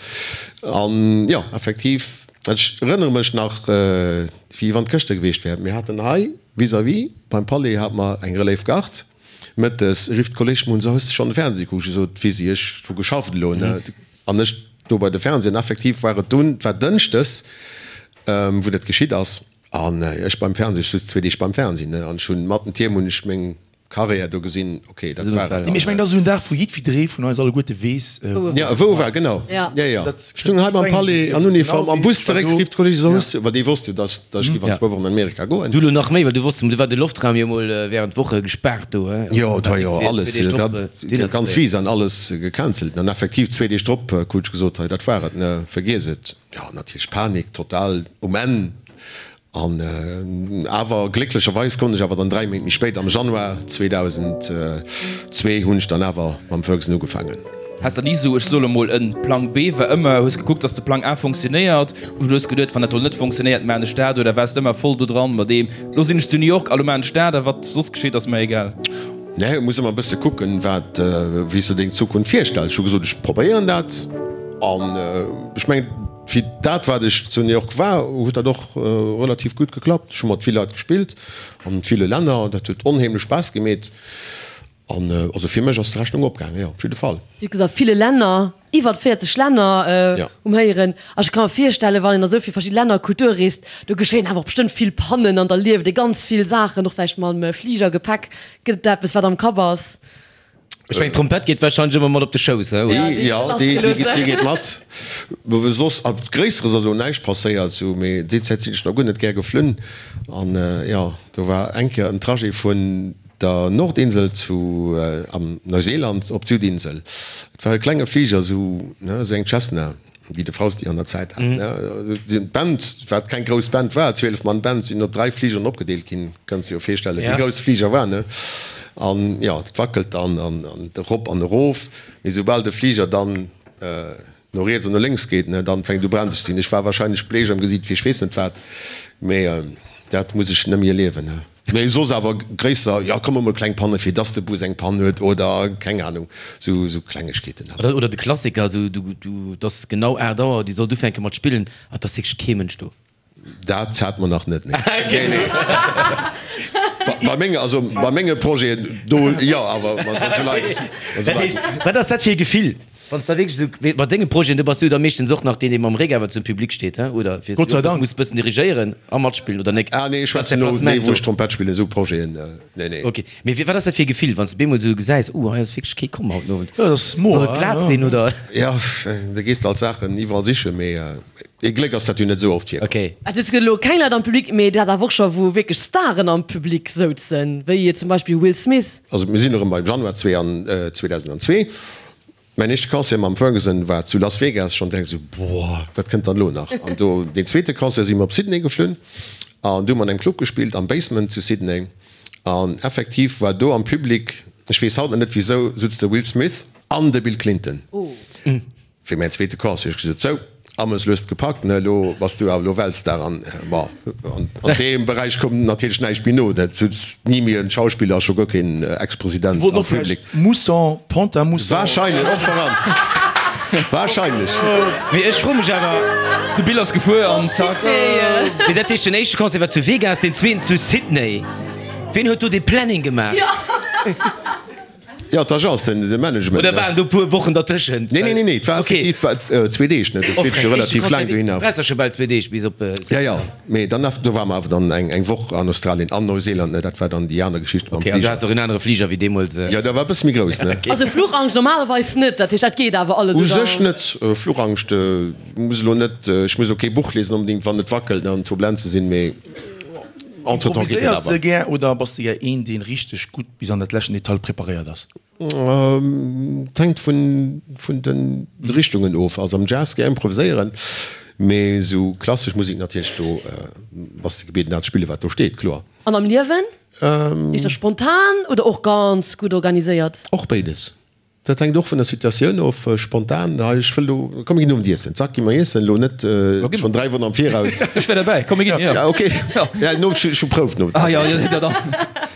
An jo, effektiv, ech erënnere mech nach, wéi wann et gëschter gewiescht wär, mir haten hei vis-à-vis beim Palais hate mer eng Relève Garde, mëttes rifft d'Kolleg mech un, So, hues de schonn de Fernseh gekuckt? Ech sot, Wéi si, ech hu geschafft elo, ne? An ech do bei de Fernseh, an effektiv war et dunn, et war dënschdes, wou dat geschitt ass, an ech beim Fernseh, ech sutz zwee Deeg beim Fernseh, ne, an ech hunn mat den Tierm hunn ech meng Carrière do gesinn, ok, dat war et dann. Mee ech mengen, dat ass esou en Dag, wou jiddwidderee vun eis alleguerte weess, wou e war. Jo, wou e war, genau. Jo, jo. Ech stung hei beim Palais an Uniform, am Bus zeréck, rifft d'Kolleege, so, hues du, well déi wosst jo, dass ech géif an zwou Wochen an Amerika goen. Du elo nach méi, well du wosst, du war de Loftraum jo mol während Woche gespaart do, he? Jo, et war jo alles, dat. Ganz Visa an alles gecancelt an effektiv zwee Deeg drop krut ech gesot, hei dat war et, ne, vergiess et. Jo, natierlech Panik, total um Enn an awer glécklecherweis konnt ech awer dann 3 Méint méi spéit, am Januar 2002 hunn ech dann awer mam Ferguson ugefaangen. Has der ni sou, ech soe lo mol, en Plang B war ëmmer, hues gekuckt, dass de Plang A funktionéiert oder hues geduet, wann dat do net funktionéiert, maan ech dat oder waars de ëmmer voll do dran mat deem, lo sinn ech zu New York a lo maan ech dat a wat soss geschitt ass mer egal? Nee, et muss ëmmer e bësse kucken, wat, wéi s de deng Zukunft virstells. Ech hu gesot, ech probéieren dat. An ech mengen, fir dat, wat ech zu New York war, huet dat och relativ gutt geklappt. Ech hu mat vill Leit gespillt, an ville Länner. Dat huet onheemlech Spaass gemeet. An also fir mech ass d'Rechnung opgaangen, jo, op jidde Fall. Wéi gesot, ville Länner. Iwwert 40 Länner um Héieren. A ech ka mer virstellen, wann een a sou vill verschidde Länner a Kulture reest, do geschéien awer och bestëmmt vill Pannen an da lieft ee ganz vill Saachen, och vläicht mam Fliger, Gepäck. Gëtt et da eppes, wat am Kapp ass? Ech mengen, d'Trompett geet warscheinlech ëmmer mat op de Schouss, he? Oder? Jo, déi geet mat. Soss Gréisseres ass elo näischt passéiert, sou, mee déi Zäit sinn ech nach guer net gär geflunn. An jo, do war eng Kéier en Trajet vun der Nordinsel zu am Neuseeland op d'Südinsel. Et war e klenge Fliger, esou, ne, esou eng Cessna, wéi de Fausti an der Zäit hat, ne. D'Band, wat keng grouss Band war, 12 Mann Band, sinn op 3 Fligeren opgedeelt ginn. Kanns de jo virstellen, wéi grouss de Fliger war, ne. An jo, et wackelt dann an erop an erof, mee soubal de Fliger dann no riets an no lénks geet, ne, dann fänkt u brenzeg ze sinn. Ech war wahrscheinlech bleech am Gesiit wéi ech weess net wat, mee dat muss ech nëmme erliewen, ne. Mee soss awer gréisser, jo komm emol kleng Panne fir dass de Bus eng Pann huet oder keng Ahnung, sou sou Klengegkeeten halt. Oder de Klassiker, sou du du et ass genau 8 Auer, dir sollt ufänke mat spillen an et ass wierklech kee Mënsch do. Dat hat mer nach net, nee. Nee, nee. Bei menge, also bei menge Projeten do jo, awer mat sou Leit, mat sou Leit. Wat ass dat fir e Gefill? Wann s de wierklech esou mat denge Projeten, do bass du da meeschtens och nach deen, dee mam Réck awer zum Public steet, he, oder? Fir Gott sei Dank. Muss bëssen dirigéieren a matspillen, oder nek? Ah nee, ech schwätzen elo, nee, wou ech Trompett spillen, esou Projeten, nee, nee. Ok, mee wat ass dat fir e Gefill, wann s de bemol esou gesäis, uh, hei ass wierklech kee komm haut den Owend? Jo, dat ass moer, Soll et glat sinn, oder? Jo, da gees de alt Saachen iwwerall sichen, mee ee Gléck ass dat jo net esou oft virkomm. Ok. Et gëtt elo keng Leit am Public, mee et hat awer och scho wou wierklech Staren am Public souzen, wéi zum Beispill Will Smith. Also mir sinn erëm beim Januar 2002. Mäin éischte Concert mam Ferguson war zu Las Vegas, schonn direkt esou, boah, wat kënnt dann elo nach? An do deen zweete Concert si mer op Sydney geflunn an do hu mer an engem Club gespillt am Basement zu Sydney an effektiv war do am Public, ech weess haut nach net wisou, sutz de Will Smith an de Bill Clinton. Fir mäin zweete Concert hu ech gesot, sou, Ames lues gepackt, ne, elo bass du awer elo Weltstar an bon, an deem Beräich koum natierlech näischt méi no, dat sutz ni méi en Schauspiller a scho guer keen Ex-President am Public. Mousson, Pont-à-Mousson. Wahrscheinlech, och voran, wahrscheinlech. Mee ech froe mech awer. De Bill ass gefuer an zack. Mee dat heescht, den éischte Concert war zu Vegas, den zweeten zu Sydney. Ween huet do dee Planning gemaach? Jo, d'Agence, den de Management. Oder waren do puer Wochen dertëschent? Nee, nee, nee, nee, et war effektiv, et war zwee Deeg, ne, dat geet jo relativ laang dohinner. Du brauchs der scho bal zwee Deeg bis op. Ja, ja, mee dann do ware mer awer dann eng eng Woch an Australien an Neuseeland, ne, dat war dann déi aner Geschicht mam Fliger. Ok, an du has och en anere Fliger wéi deemools. Jo, dat war e bësse méi grouss, ne. Also Fluchangscht normalerweis net, dat heescht dat geet awer alles, oder? U sech net, Fluchangscht muss elo net, ech muss elo kee Buch liesen onbedéngt, wann et wackelt an Turbulenze sinn, mee entretemps geet et awer. Improviséiers de gär oder bass de gär een, deen richteg gutt bis an dat leschten Detail preparéiert ass? Et hänkt vun de Richtungen of. Also am Jazz gär improviséieren, mee esou klassesch Musek natierlech, do bass de gebieden dat ze spillen, wat do steet, kloer. An am Liewen? Éischter spontan oder och ganz gutt organiséiert? Och béides. Dat hänkt och vun der Situatioun of. Spontan, hei ech wëll elo, komm mir ginn Owend iessen, zack gi mer iessen, elo net schonn 3 Wochen am Viraus. Ech wär derbäi, komm mir ginn, jo. Ja ok, ja no ech hu Prouf no. Ah jo, jo da dann.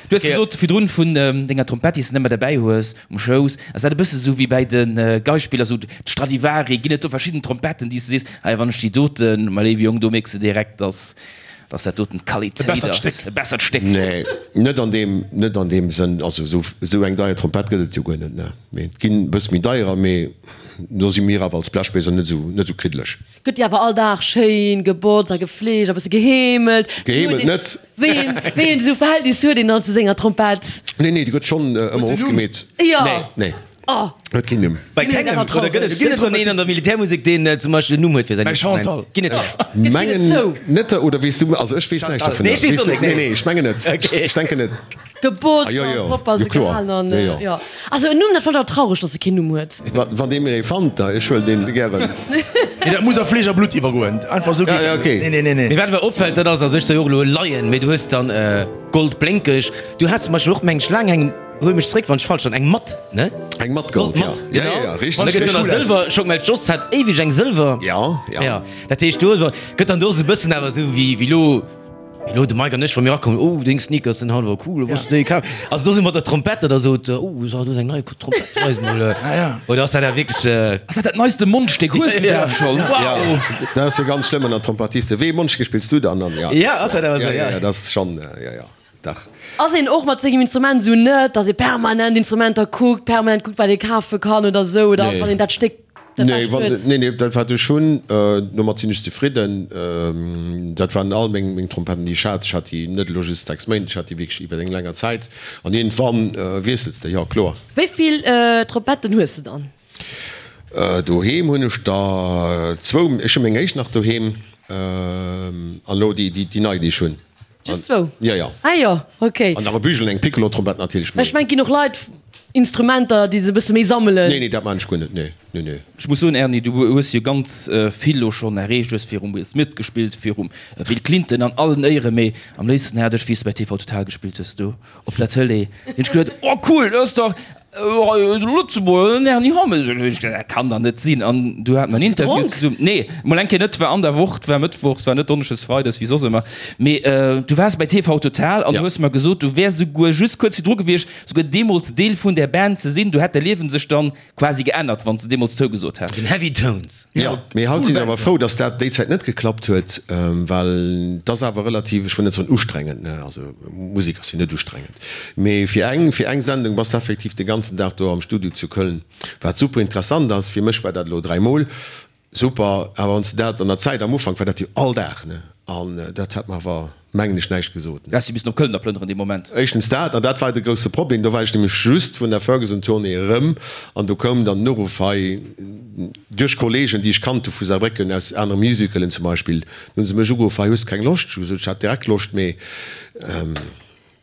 Du hues gesot virdrun vun denger Trompett déi s de net méi derbäi hues um Schouss, ass dat e bësse sou wéi bäi de Geispiller, sou d'Stradivari, ginn et do verschidden Trompetten déi s du sees, hei wann ech déi doten, mäi léiwe Jong, do mierks de direkt, dass Dass dat doten d'Qualitéit ass. E bessert Stéck. Nee, net an deem, net an deem Sënn. Also esou, esou eng deier Trompett gëtt et jo guer net, ne. Mee et ginn e bësse méi deierer, mee do si mir awer als Blechbléiser net esou, net esou kriddeleg. Gëtt déi awer all Dag schéin gebotzt a gefleegt a bësse geheemelt? Geheemelt net. Wéi een, wéi een esou Verhältnis huet een dann zu senger Trompett? Nee, nee, déi gëtt schonn ëmmer ofgemeet. Jo. Nee, nee. Oh. Huet keen Numm. Bei kengem? Oder gëtt et, gëtt et dann een an der Militärmusek, deen zum Beispill en Numm huet fir säin Instrument? Chantal. Ginn et der? Mengen net, oder weess du? Also ech weess näischt dovunner. Nee, ech weess och net. Nee, nee, ech mengen net. Okay. Ech denken net. Gebotzt Ah, jo, an jo. propper Jo, se kloer. gehalen an, Jo, jo. jo. Also en Numm, dat fannen ech awer traureg, dass e keen Numm huet. Wa, wann dee mir ee fannt, da ech huelen deen gären. Nee, dat muss a Fleesch a Blutt iwwergoen. Einfach esou geet Ja, ja, dat net. okay. Nee, nee, nee, nee. Mee wat awer opfält, dat ass, also ech soe jo och elo Laien, mee du hues dann Goldblénkeg. Du has zum Beispill och, meng ech, laang eng. Huel mech zréck wann ech falsch san, eng matt, ne? Eng matt Gold, ja. Ja, ja, ja, richteg. An da gëtt jo nach Sëlwer, Schock mell d'Joss hat éiweg eng Sëlwer. Ja, ja. Ja, dat heescht do ass, gëtt dann do esou e bëssen awer esou wéi, wéi lo, wéi lo de Mike an ech, wa mir erakommen, oh deng Sneakers sinn haut awer cool, wou hues de déi kaf? Also do sou mat der Trompett oder sot, oh do ass eng nei Trompett, weis mol. Ah ja. Oder ass dat awer wierklech. Ass dat dat neiste Mondstéck? Hues du dat schonn? Wow! Ja, dat ass jo ganz schlëmm ënner Trompettisten. Wéi ee Mondstéck spills du dann? An ja. Ja, ass dat awer esou, ja. Ja, ja, dat ass schonn, ja, ja. Dach. Ass een och mat sengem Instrument esou net, dass ee permanent Instrumenter kuckt, permanent kuckt, wat ee kafe kann oder esou, oder ass, wann een dat Stéck dat Nee, Bescht wann, huet? nee, nee, dat wat ech hunn, domat sinn ech zefridden. Dat waren all meng, meng Trompetten, déi ech hat. Ech hat déi net elo just 6 Méint, ech hat déi wierklech iwwer eng länger Zäit. An iergendwann wiessels de, jo, kloer. Wéi vill Trompetten hues de dann? Doheem hunn ech der zwou. Ech hu meng éischt nach doheem an elo déi, déi nei, déi ech hunn. Just zwou? Ja, ja. Ah jo, ok. An nach e Bügel, eng Piccolo-Trompett natierlech. Ech mengen, et ginn och Leit, Instrumenter, déi se e bësse méi sammelen. Nee, nee, dat maan ech guer net, nee, nee, nee. Ech muss soen, Erny, du hues jo ganz vill lo schonn erreecht. Du hues virum Will Smith gespillt, virum Bill Clinton, an allen Éieren, mee am léifsten hat ech, wéi s de bei TV Total gespillt hues, do op der Tëlee, hunn ech geduet, oh cool, dat ass dach Lëtzebuerger, den Erny Hammes. Ech hunn geduet, dat kann dach net sinn. An du hat mer en Interview zesummen, nee, mol eng Kéier net, war an der Woch, 't war mëttwochs, 't war net donneschdes, freides, wéi soss ëmmer, mee du waars bei TV Total an du hues mer gesot, du wäers esouguer just kuerz virdru gewiescht, esouguer deemools Deel vun där Band ze sinn. Du hätt däi Liewen sech dann quasi geännert, wann s de deemools zougesot häss. Den Heavy Tones. Jo, mee haut sinn ech awer frou, dass dat déi Zäit net geklappt huet, well et ass awer relativ, ech wëll net soen ustrengend, ne, also Musek ass jo net ustrengend, mee fir eng, fir eng Sendung bass de effektiv de ganzen. ganzen Dag do am Studio zu Köln, wat super interessant ass. Fir mech war dat elo dräimol super, awer wann s de dat an der Zäit, am Ufank war dat jo all Dag, ne, an dat hat mer awer, mengen ech, näischt gesot, ne. Du häss jo missen op Köln da plënneren dee Moment. Éischtens dat, an dat war de grousse Problem, do war ech nämlech just vun der Ferguson-Tournée erëm an do koum dann den Uruff hei duerch Kollegen, déi ech kannt hu vu Saarbrécken aus anere Musicalen zum Beispill, do hu se mech ugeruff, hei hues de keng Loscht? Ech hu gesot, ech hat direkt Loscht, mee.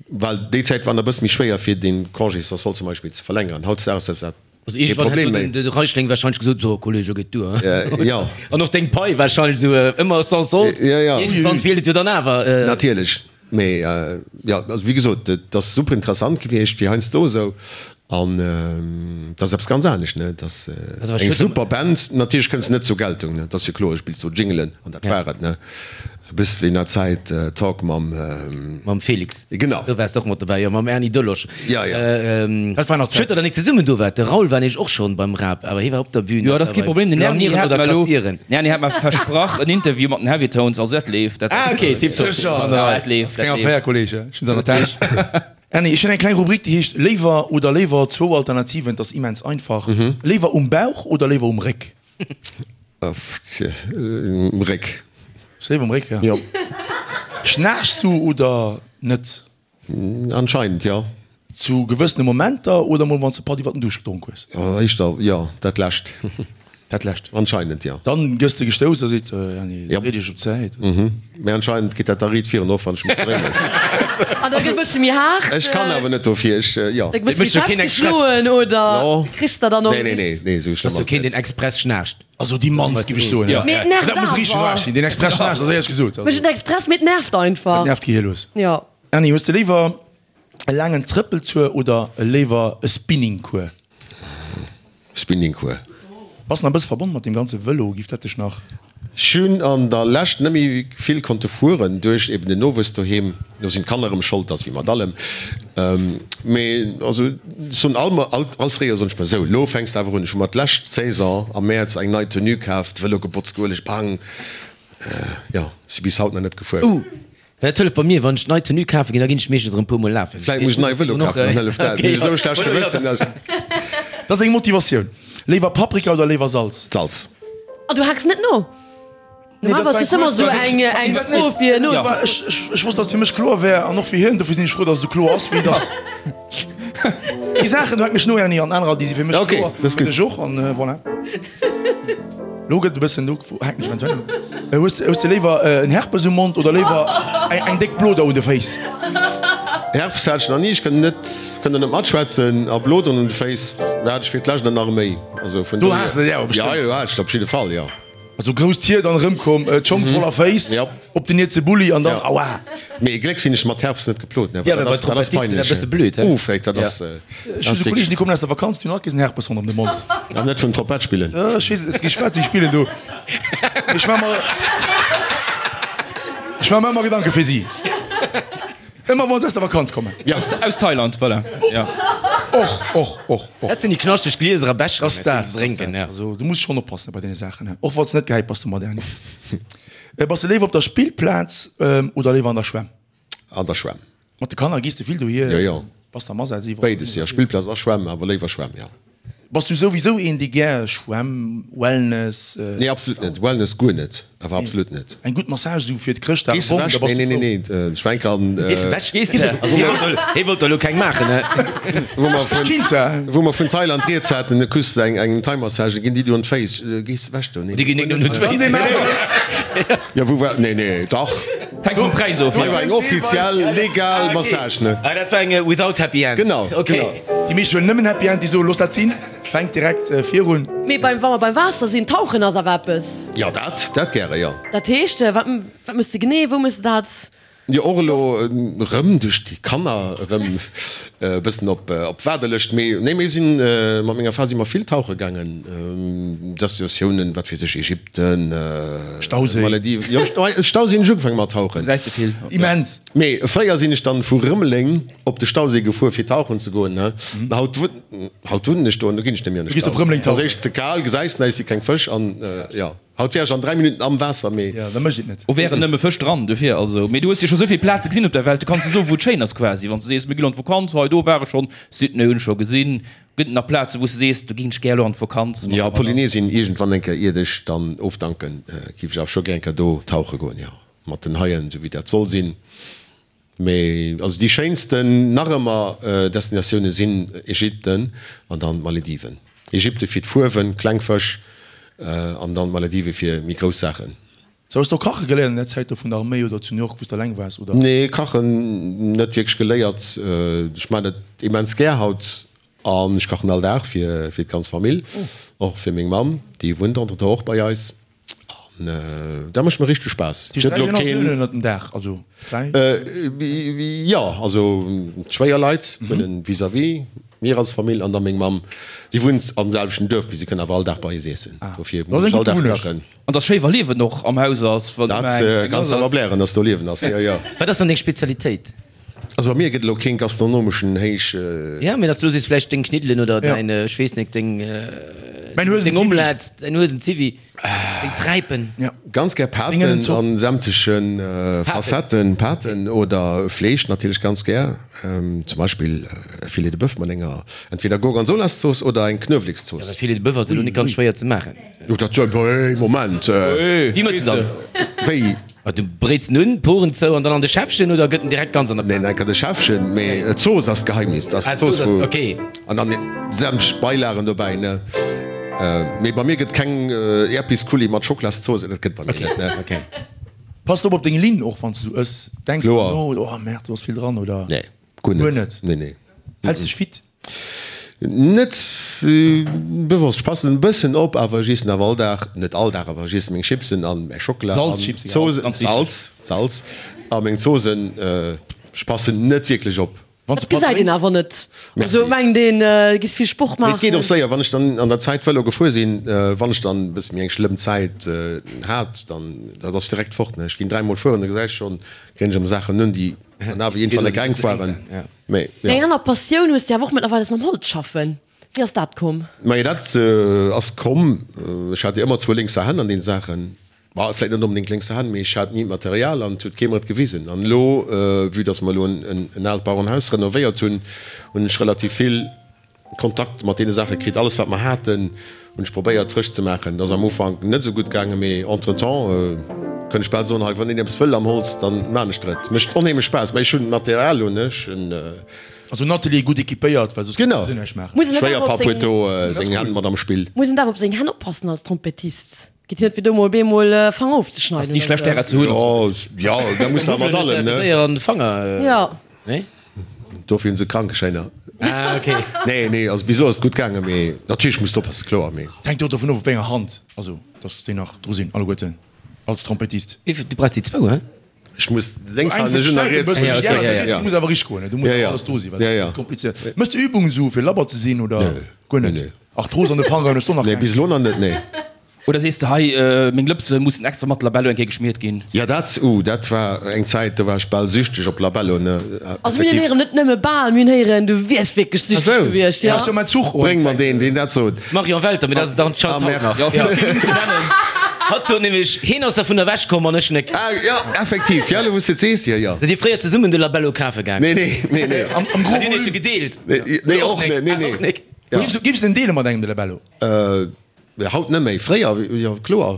Well déi Zäit war nach e bësse méi schwéier fir dee Congé sans solde zum Beispill ze verlängeren. Hautdesdaags ass dat Also kee iergendwann hätt Problem méi. de Reichling wahrscheinlech gesot, So, Kollege, geet duer. Jo. An och deng Pai wahrscheinlech esou ëmmer sans solde. Jo, jo. Iergendwann feelt et jo dann awer. Natierlech. Mee jo, also wéi gesot, et ass super interessant gewiescht, fir heiansdo esou. An et ass eppes ganz anescht, ne? Et ass eng super Band. Natierlech kënns de net zur Geltung, ne? Et ass jo kloer, du spills do Jingelen an dat war et, ne? E bësse wéi an der Zäit Talk mam. Mam Felix. Genau. Do waars de och mat dobäi, jo, mam Erny Delosch. Jo, jo. Dat war nach Zäiten. Schued, datt der nik zesummen do waart. De Raoul war nämlech och schonn beim Rap, awer hie war op der Bühn. Jo, dat ass kee Problem. Den Erny hat mer elo, den Erny hat mer versprach en Interview mat den Heavy Tones, also dat leeft. Dat. Ah, okay, tiptop. Sécher. Dat leeft, Ass keng dat leeft. Affär, Kollege. Ech hunn se an der Täsch. Erny, ech hunn eng kleng Rubrik, déi heescht Léiwer oder léiwer, zwou Alternativen, et ass immens einfach. Léiwer um Bauch oder léiwer um Réck? Um Réck. Léiwer um Réck, ja. Jo. Schnaarchs du oder net? Anscheinend, jo. Zu gewëssene Momenter oder mol wann s de Patt iwwer den Duuscht gedronk hues? Éischter, jo, dat lescht. Dat lescht. Anscheinend, jo. Dann gëss de gestouss a seet, Erny, Yep. dréi dech op d'Säit. Mhm. Mee anscheinend geet dat da riit virun, och wann ech mech dréinen. An da gëtt e bësse méi haart. Ech kann awer net dofir, ech, jo. Da gëtt e bësse méi festgeschloen oder kriss der dann och. Nee, nee, nee, nee, esou schlëmm Ass jo ass et keen, net. deen express schnaarcht. Also déi mannst, géif ech soen. Ja. Mee et nervt Dat muss richteg awer. aarg sinn, deen express schnaarcht, ass éierlech gesot. Mécht et express, mee et nervt einfach. Et nervt d'Gehir lues. Jo. Erny, hues de léiwer e laangen Trëppeltour oder léiwer e Spinningcours? Spinningcours. Bass nach e bësse verbonn mat deem ganze Vëlo? Giff dat dech nach. Ech hunn an der Lescht net méi vill konnte fueren duerch eben den Nowuess doheem. Do sinn d'Kanner erëm Schold, ass wéi mat allem. Mee also ech soen all all Fréijoer soen ech mer, sou lo fänks de awer un. Ech hu mer d'lescht Saison am Mäerz eng nei Tenue kaf, de Vëlo gebotzt, ueleg, bang, jo, si bis haut nach net gefuer. Dat hëlleft bei mir, wann ech nei Tenue kafe ginn, da ginn ech meeschtens erëm puer mol lafen. Vläit muss ech nei Vëlo kafen, dann hëlleft dat. Mee esou schlecht Gewëssen. Dat ass eng Motivatioun. Léiwer Paprika oder léiwer Salz? Salz. An du haaks net no? Normalerweis ass ëmmer esou eng eng Fro fir no. Ech wosst, datt et fir mech kloer wär an och fir hien. Dofir sinn ech frou, datt et esou kloer ass, wéi et ass. Déi Saachen, do haken ech no, Erny, an anerer, déi si fir mech kloer. Ok, dat ass gutt. Fir dech och, an voilà. Lo gëtt e bëssen, lo hänken ech eventuell un. Hues hues de léiwer en Herpes um Mond oder léiwer eng eng déck Bloder un de Féiss? Herpes hat ech nach ni, ech kënnt net kënnt der net matschwätzen. A Bloderen un de Féiss hat ech fir d'lescht an nach méi. Also vun Do has de der awer Ja, bestëmmt. jo, hat ech op jidde Fall, jo. Also grousst Hiert an erëmkomm, d'Schong voller Féiss, Ja. op den Nietse Bulli an dann Ja. aua. Mee Gléck sinn ech mat Herpes net geplot, ne, Ja, well well dat bei ass dat ass Trompettisten dat peinlech. bësse blöd, he? Uff, dat ass. Ech hu sou Kollegen, déi kommen aus der Vakanz, déi hunn alt kees en Herpes ronderëm de Mond. An net vum Trompett spillen. Ech weess et net richteg, wat si spillen do. Mee ech maache mer, ech maache mer ëmmer Gedanke fir si. Ëmmer wann se aus der Vakanz kommen. Ja. Aus Thailand, voilà. Ja. Och, och, och, och. Dat sinn déi knaschteg Glieser a Becheren, Ass dat, déi se drénken, ja. Also, du muss schonn oppassen bei deene Saachen, he. Och wann s de net gehäit bass domat, Erny. Bass de léiwer op der Spillplaz oder léiwer an der Schwämm? An der Schwämm. Mat de Kanner gees de vill dohier? Jo, jo. Bass de am Asaz iwwerall? Béides, jo. Spillplaz a Schwämm, awer léiwer Schwämm, jo. Bass du souwisou een, dee gär Schwämm, Wellness? Nee, absolut net. Wellness guer net, awer absolut net. Eng gutt Massage esou fir d'Chrëschtdag, Gees bomm, da ewech? bass Nee, du nee, nee, frou. nee, ech war eng Kéier an. Gees ewech? Gees de? Also hie wollt elo, hie wollt elo keng maachen, ne? Wou mer Ech vun, kinnt zwar. wou mer vun Thailand rieds haten, du kriss eng, eng Thai-Massage, da ginn déi dir un d'Féiss. Gees ewech do? Nee, Déi ginn net un d'Féiss. Jo, wou war, nee, nee, dach. Hänkt vum Präis of. Hei war eng offiziell, legal Massage, ne? Ah, dat war eng without happy end. Genau, genau. Déi meescht huelen nëmmen Happy End, déi soen, looss dat sinn, fänkt direkt virun. Mee beim, wa mer beim Waasser sinn, tauchen ass awer eppes. Jo, dat, dat gäre, jo. Dat heescht, wat, wat méchs de genee, wou méchs de dat? Jo, och elo erëm duerch déi Kanner erëm e bëssen op, op d'Waardelëscht. Mee nee, mir sinn, mat menger Fra si mer vill tauche gaangen, Destinatiounen, wat weess ech, Ägypten, Stauséi. Malediven, jo, Stauséi hunn ech ugefaange mat tauchen. Gesäis de vill. Immens. Mee fréier sinn ech dann vu Rëmeleng op de Stauséi gefuer fir tauchen ze goen. Haut haut wunnen ech do an do ginn ech net méi an de Du gees op Stau. Rëmeleng Ass tauchen. éischtens ze kal, gesäis näischt, si keng Fësch an jo. Haut wär ech an 3 Minutten am Waasser, mee. Jo, da mécht et net. O wären nëmme Fësch dran, dofir also. Mee du hues jo scho souvill Plaze gesinn op der Welt, du kanns jo soen, wou et schéin ass quasi. Wann s de sees, mir ginn an d'Vakanz, hei do war ech schonn, Sydney hunn ech scho gesinn. Gëtt et nach Plaze wou s de sees, do géing ech gär elo an d'Vakanz mat Jo, Polynesien, iergendwann eng Kéier, iert ech dann ofdanken, géif ech awer scho gär eng Kéier do tauche goen, jo, mat den Haien, esou wéi dat soll sinn. Mee also déi schéinsten nach ëmmer Destinatioune sinn Ägypten an dann d'Malediven. Ägypten fir d'Fuerwen, kleng Fësch, an dann d'Maledive fir méi grouss Saachen. Sou, hues de och kache geléiert an der Zäit do vun der Arméi oder zu New York wou s de alleng waars oder? Nee, kachen net wierklech geléiert. Ech maan et immens gär haut an ech kachen all Dag fir fir d'ganz Famill, och fir meng Mamm, déi wunnt entretemps och bei eis. An dat mécht mer richteg Spaass. Déi dräi Generatiounen ënnert dem Daach, also dräi? Jo, also d'Schwéierleit wunnen vis-à-vis, mir als Famill an da meng Mamm. Si wunnt am selwechten Duerf, mee si kënnt awer all Dag bei eis iessen. Dofir muss ech all Dag kachen. An dass schéi wa Liewen och am Haus ass. Dat kanns de awer blären, dass do Liewen ass, jo, jo. Wat ass dann deng Spezialitéit? Also bei mir gëtt elo keen gastronomeschen Héich. Ja, mee dass du elo sees vläicht deng Kniddelen oder däin, ech weess net, deng, deng Omelette, däin Huesenziwwi, deng Träipen. Ganz gär Paten an sämtlechen Facetten, Paten oder Fleesch natierlech ganz gär. Zum Beispill e Filet de Boeuf mat enger entweder Gorgonzolaszooss oder eng Knuewelekszooss. Ja, well Filet de Boeuf ass elo net ganz schwéier ze maachen. Jo, dat, hey, Moment! Wéi méchs de dann? Wéi? Ah, du bréits en un, d'Poren zou an dann an de Schäffchen oder gëtt en direkt ganz an der Pan? Neen, enker de Schäffchen, mee d'Zooss ass d'Geheimnis. Dat ass d'Zooss wou. Ok. An dann sämtlech Beilagen dobäi, ne? Mee bei mir gëtt keng Äerpisculli mat Schocklaszooss, dat gëtt bei mir net, ne? Ok. Pass de op op deng Linn och wann s de sou ëss? Denks de no, oh merde, do ass vill dran, oder? Nee, guer net. Guer net? Nee, nee. Häls dech fit? Net bewosst, ech passen en bëssen op, awer ech iessen awer all Dag, net all Dag, awer ech iessen meng Chipsen an mäi Schockela an Zoosen, Salz, Salz a meng Zoosen, ech passen net wierklech op. Dat gesäit een awer net, also mengt een du giss vill Sport maachen. Mee et geet och séier, wann ech dann an der Zäit Vëlo gefuer sinn, wann ech dann e bësse méi eng schlëmm Zäit hat, dann dat ass direkt fort, ne, ech ginn dräimol fueren, da gesäis schonn, kréien ech ëmmer Saachen un, déi an awer iergendwann enk enk waren. Mee, jo. Eng aner Passioun hues de awer och mëttlerweil, ass mam Holz schaffen. Wéi ass dat komm? Majo, dat ass komm, ech hat jo ëmmer zwou lénkser Hänn an deene Saachen. Bah, vläit net onbedéngt lénkser Hänn, mee ech hat ni d'Material an et huet kee mer et gewisen. An elo, vue dass mer elo en aalt Bauerenhaus renovéiert hunn, hunn ech relativ vill Kontakt mat deene Saache kritt. Alles wat mer haten, hunn ech probéiert frësch ze maachen. Dat ass am Ufank net esou gutt gaangen, mee entretemps kënn ech bal soen, hei wann een eppes wëll am Holz, dann maan ech der et. Mécht onheemlech Spaass, mä ech hunn d'Material elo net. Ech hunn. Also en Atelier gutt equipéiert, well soss kann een näischt maachen. Genau, Schwéierpapp huet do seng Hänn mat am Spill. Muss een daf op seng Hänn oppassen als Trompettist? Geet jo net fir do mol beemol Fanger ofzeschneiden. Ass ni schlecht därer ze hunn. Jo, jo, da muss de mat allem, ne? Séier an de Fanger, Jo. nee? Dofir hunn se Krankeschäiner. Ah, ok. Nee, nee, also bis elo ass et gutt gaangen, mee natierlech muss de oppassen, kloer, mee. Et hänkt jo dovun of op wéi enger Hand, also dass déi nach dru sinn alleguerten als Trompettist. Wéi, du brauchs déi zwou, he? Ech muss lénks halen, ech hunn nach riets. Ja, okay, ja, ja. Du muss awer richteg goen, do muss awer alles dru sinn, well dat ass komplizéiert. Méchs de Übungen esou fir labber ze sinn oder guer net? Nee, nee. Arthrose an de Fangeren hues du och nach keng? Nee, bis elo nach net, nee. Oder sees de, hei, meng Lëpse mussen extra mat Labello eng Kéier geschmiert ginn? Ja, dat, uh, dat war eng Zäit, do war ech bal süchteg op Labello, ne. Also mir hunn héieren, net nëmme bal, mir hunn héieren, du wiers wierklech süchteg gewiescht, jo. Bréng mer deen, deen dat sot. Marion Welter, mee dat ass et anscheinend haut nach. Jo, fir op den Numm ze nennen. Hatt sot nämlech, heen ass dervun ewech komm an ech nek. Ah, jo, effektiv, jo, elo wou s de et sees, jo, jo. Sidd dir fréier zesummen de Labello kafe gaangen? Nee, nee, nee, nee. Am gros Hat dir iech volume. e gedeelt? Nee, och net, nee, nee. Och nek. Giffs de en deele mat engem, de Labello? Haut net méi, fréier jo kloer.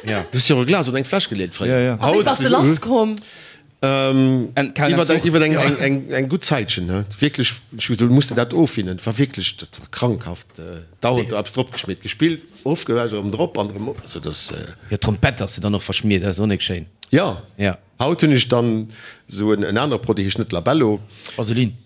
Du hues jo e Glas oder eng Fläsch geleet fréier. A wéi bass de lass komm? Iwwer iwwer eng eng gutt Zäitchen, he wierklech. Ech hu gesot, du muss der dat ofwinnen. Et war wierklech, dat war krankhaft. Dauernd do eppes dropgeschmiert, gespillt, ofgewäsch, erëm drop an erëm op. Also dat. Jo, d'Trompett ass jo dann och verschmiert, dat ass och nik schéin. Jo, Jo. haut hunn ech dann esou en anere Produit, heescht net Labello. Vaseline.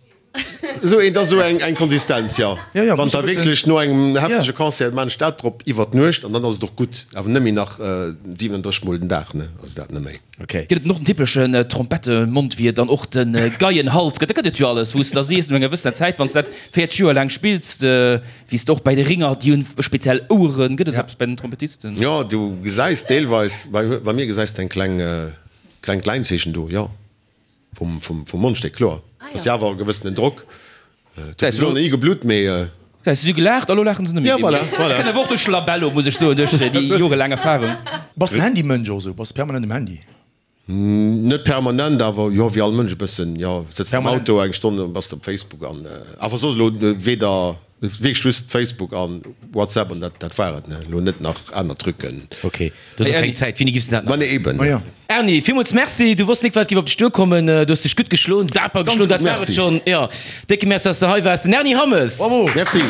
Esou eent ass esou eng Konsistenz, jo. Wann da wierklech no engem heftege Concert maan ech dat drop iwwer d'Nuecht an dann ass et och gutt. Awer net méi nach 37 mol den Dag, ne, ass dat net méi. Ok. Gëtt et och den typeschen Trompettemondwiert an och de Geienhals gëtt? Da gëtt et jo alles, wou s de da sees no enger gewëssener Zäit, wann s dat 40 Joer laang spills, wéi s de och bäi de Ringer, déi hunn speziell Oueren. Gëtt et esou eppes bäi den Trompettisten? Jo, du gesäis deelweis, bei mir gesäis de eng kleng, klengt Läinzeechen do, jo. Vum Mondstéck, kloer. Ass jo awer e gewëssenen Drock. Et huet bis elo nach ni geblutt, mee. Gesäis, si hu gelaacht a lo laachen se net méi. Ja, voilà, voilà. Dat kënnt awer och duerch Labello, muss ech soen, duerch déi jorelaang Erfarung. Bass den Handymënsch och esou? Bass permanent um Handy? Net permanent, awer jo, wéi all Mënsch e bëssen, jo. Sëtz am Auto eng Stonn an bass op Facebook an awer soss elo weder wierklech just Facebook an WhatsApp an dat dat war et, ne. Elo net nach aner Trucken. Ok, du hues och keng Zäit. Wéini giffs de dat nach? Ma nee, eben. Ma jo. Erny, villmools Merci. Du wosst nik wat giff op dech duerkommen. Du hues dech gutt geschloen, daper geschloen, dat war et Merci. schonn. Jo, décke Merci, dass de hei waars. Den Erny Hammes. Bravo! Merci.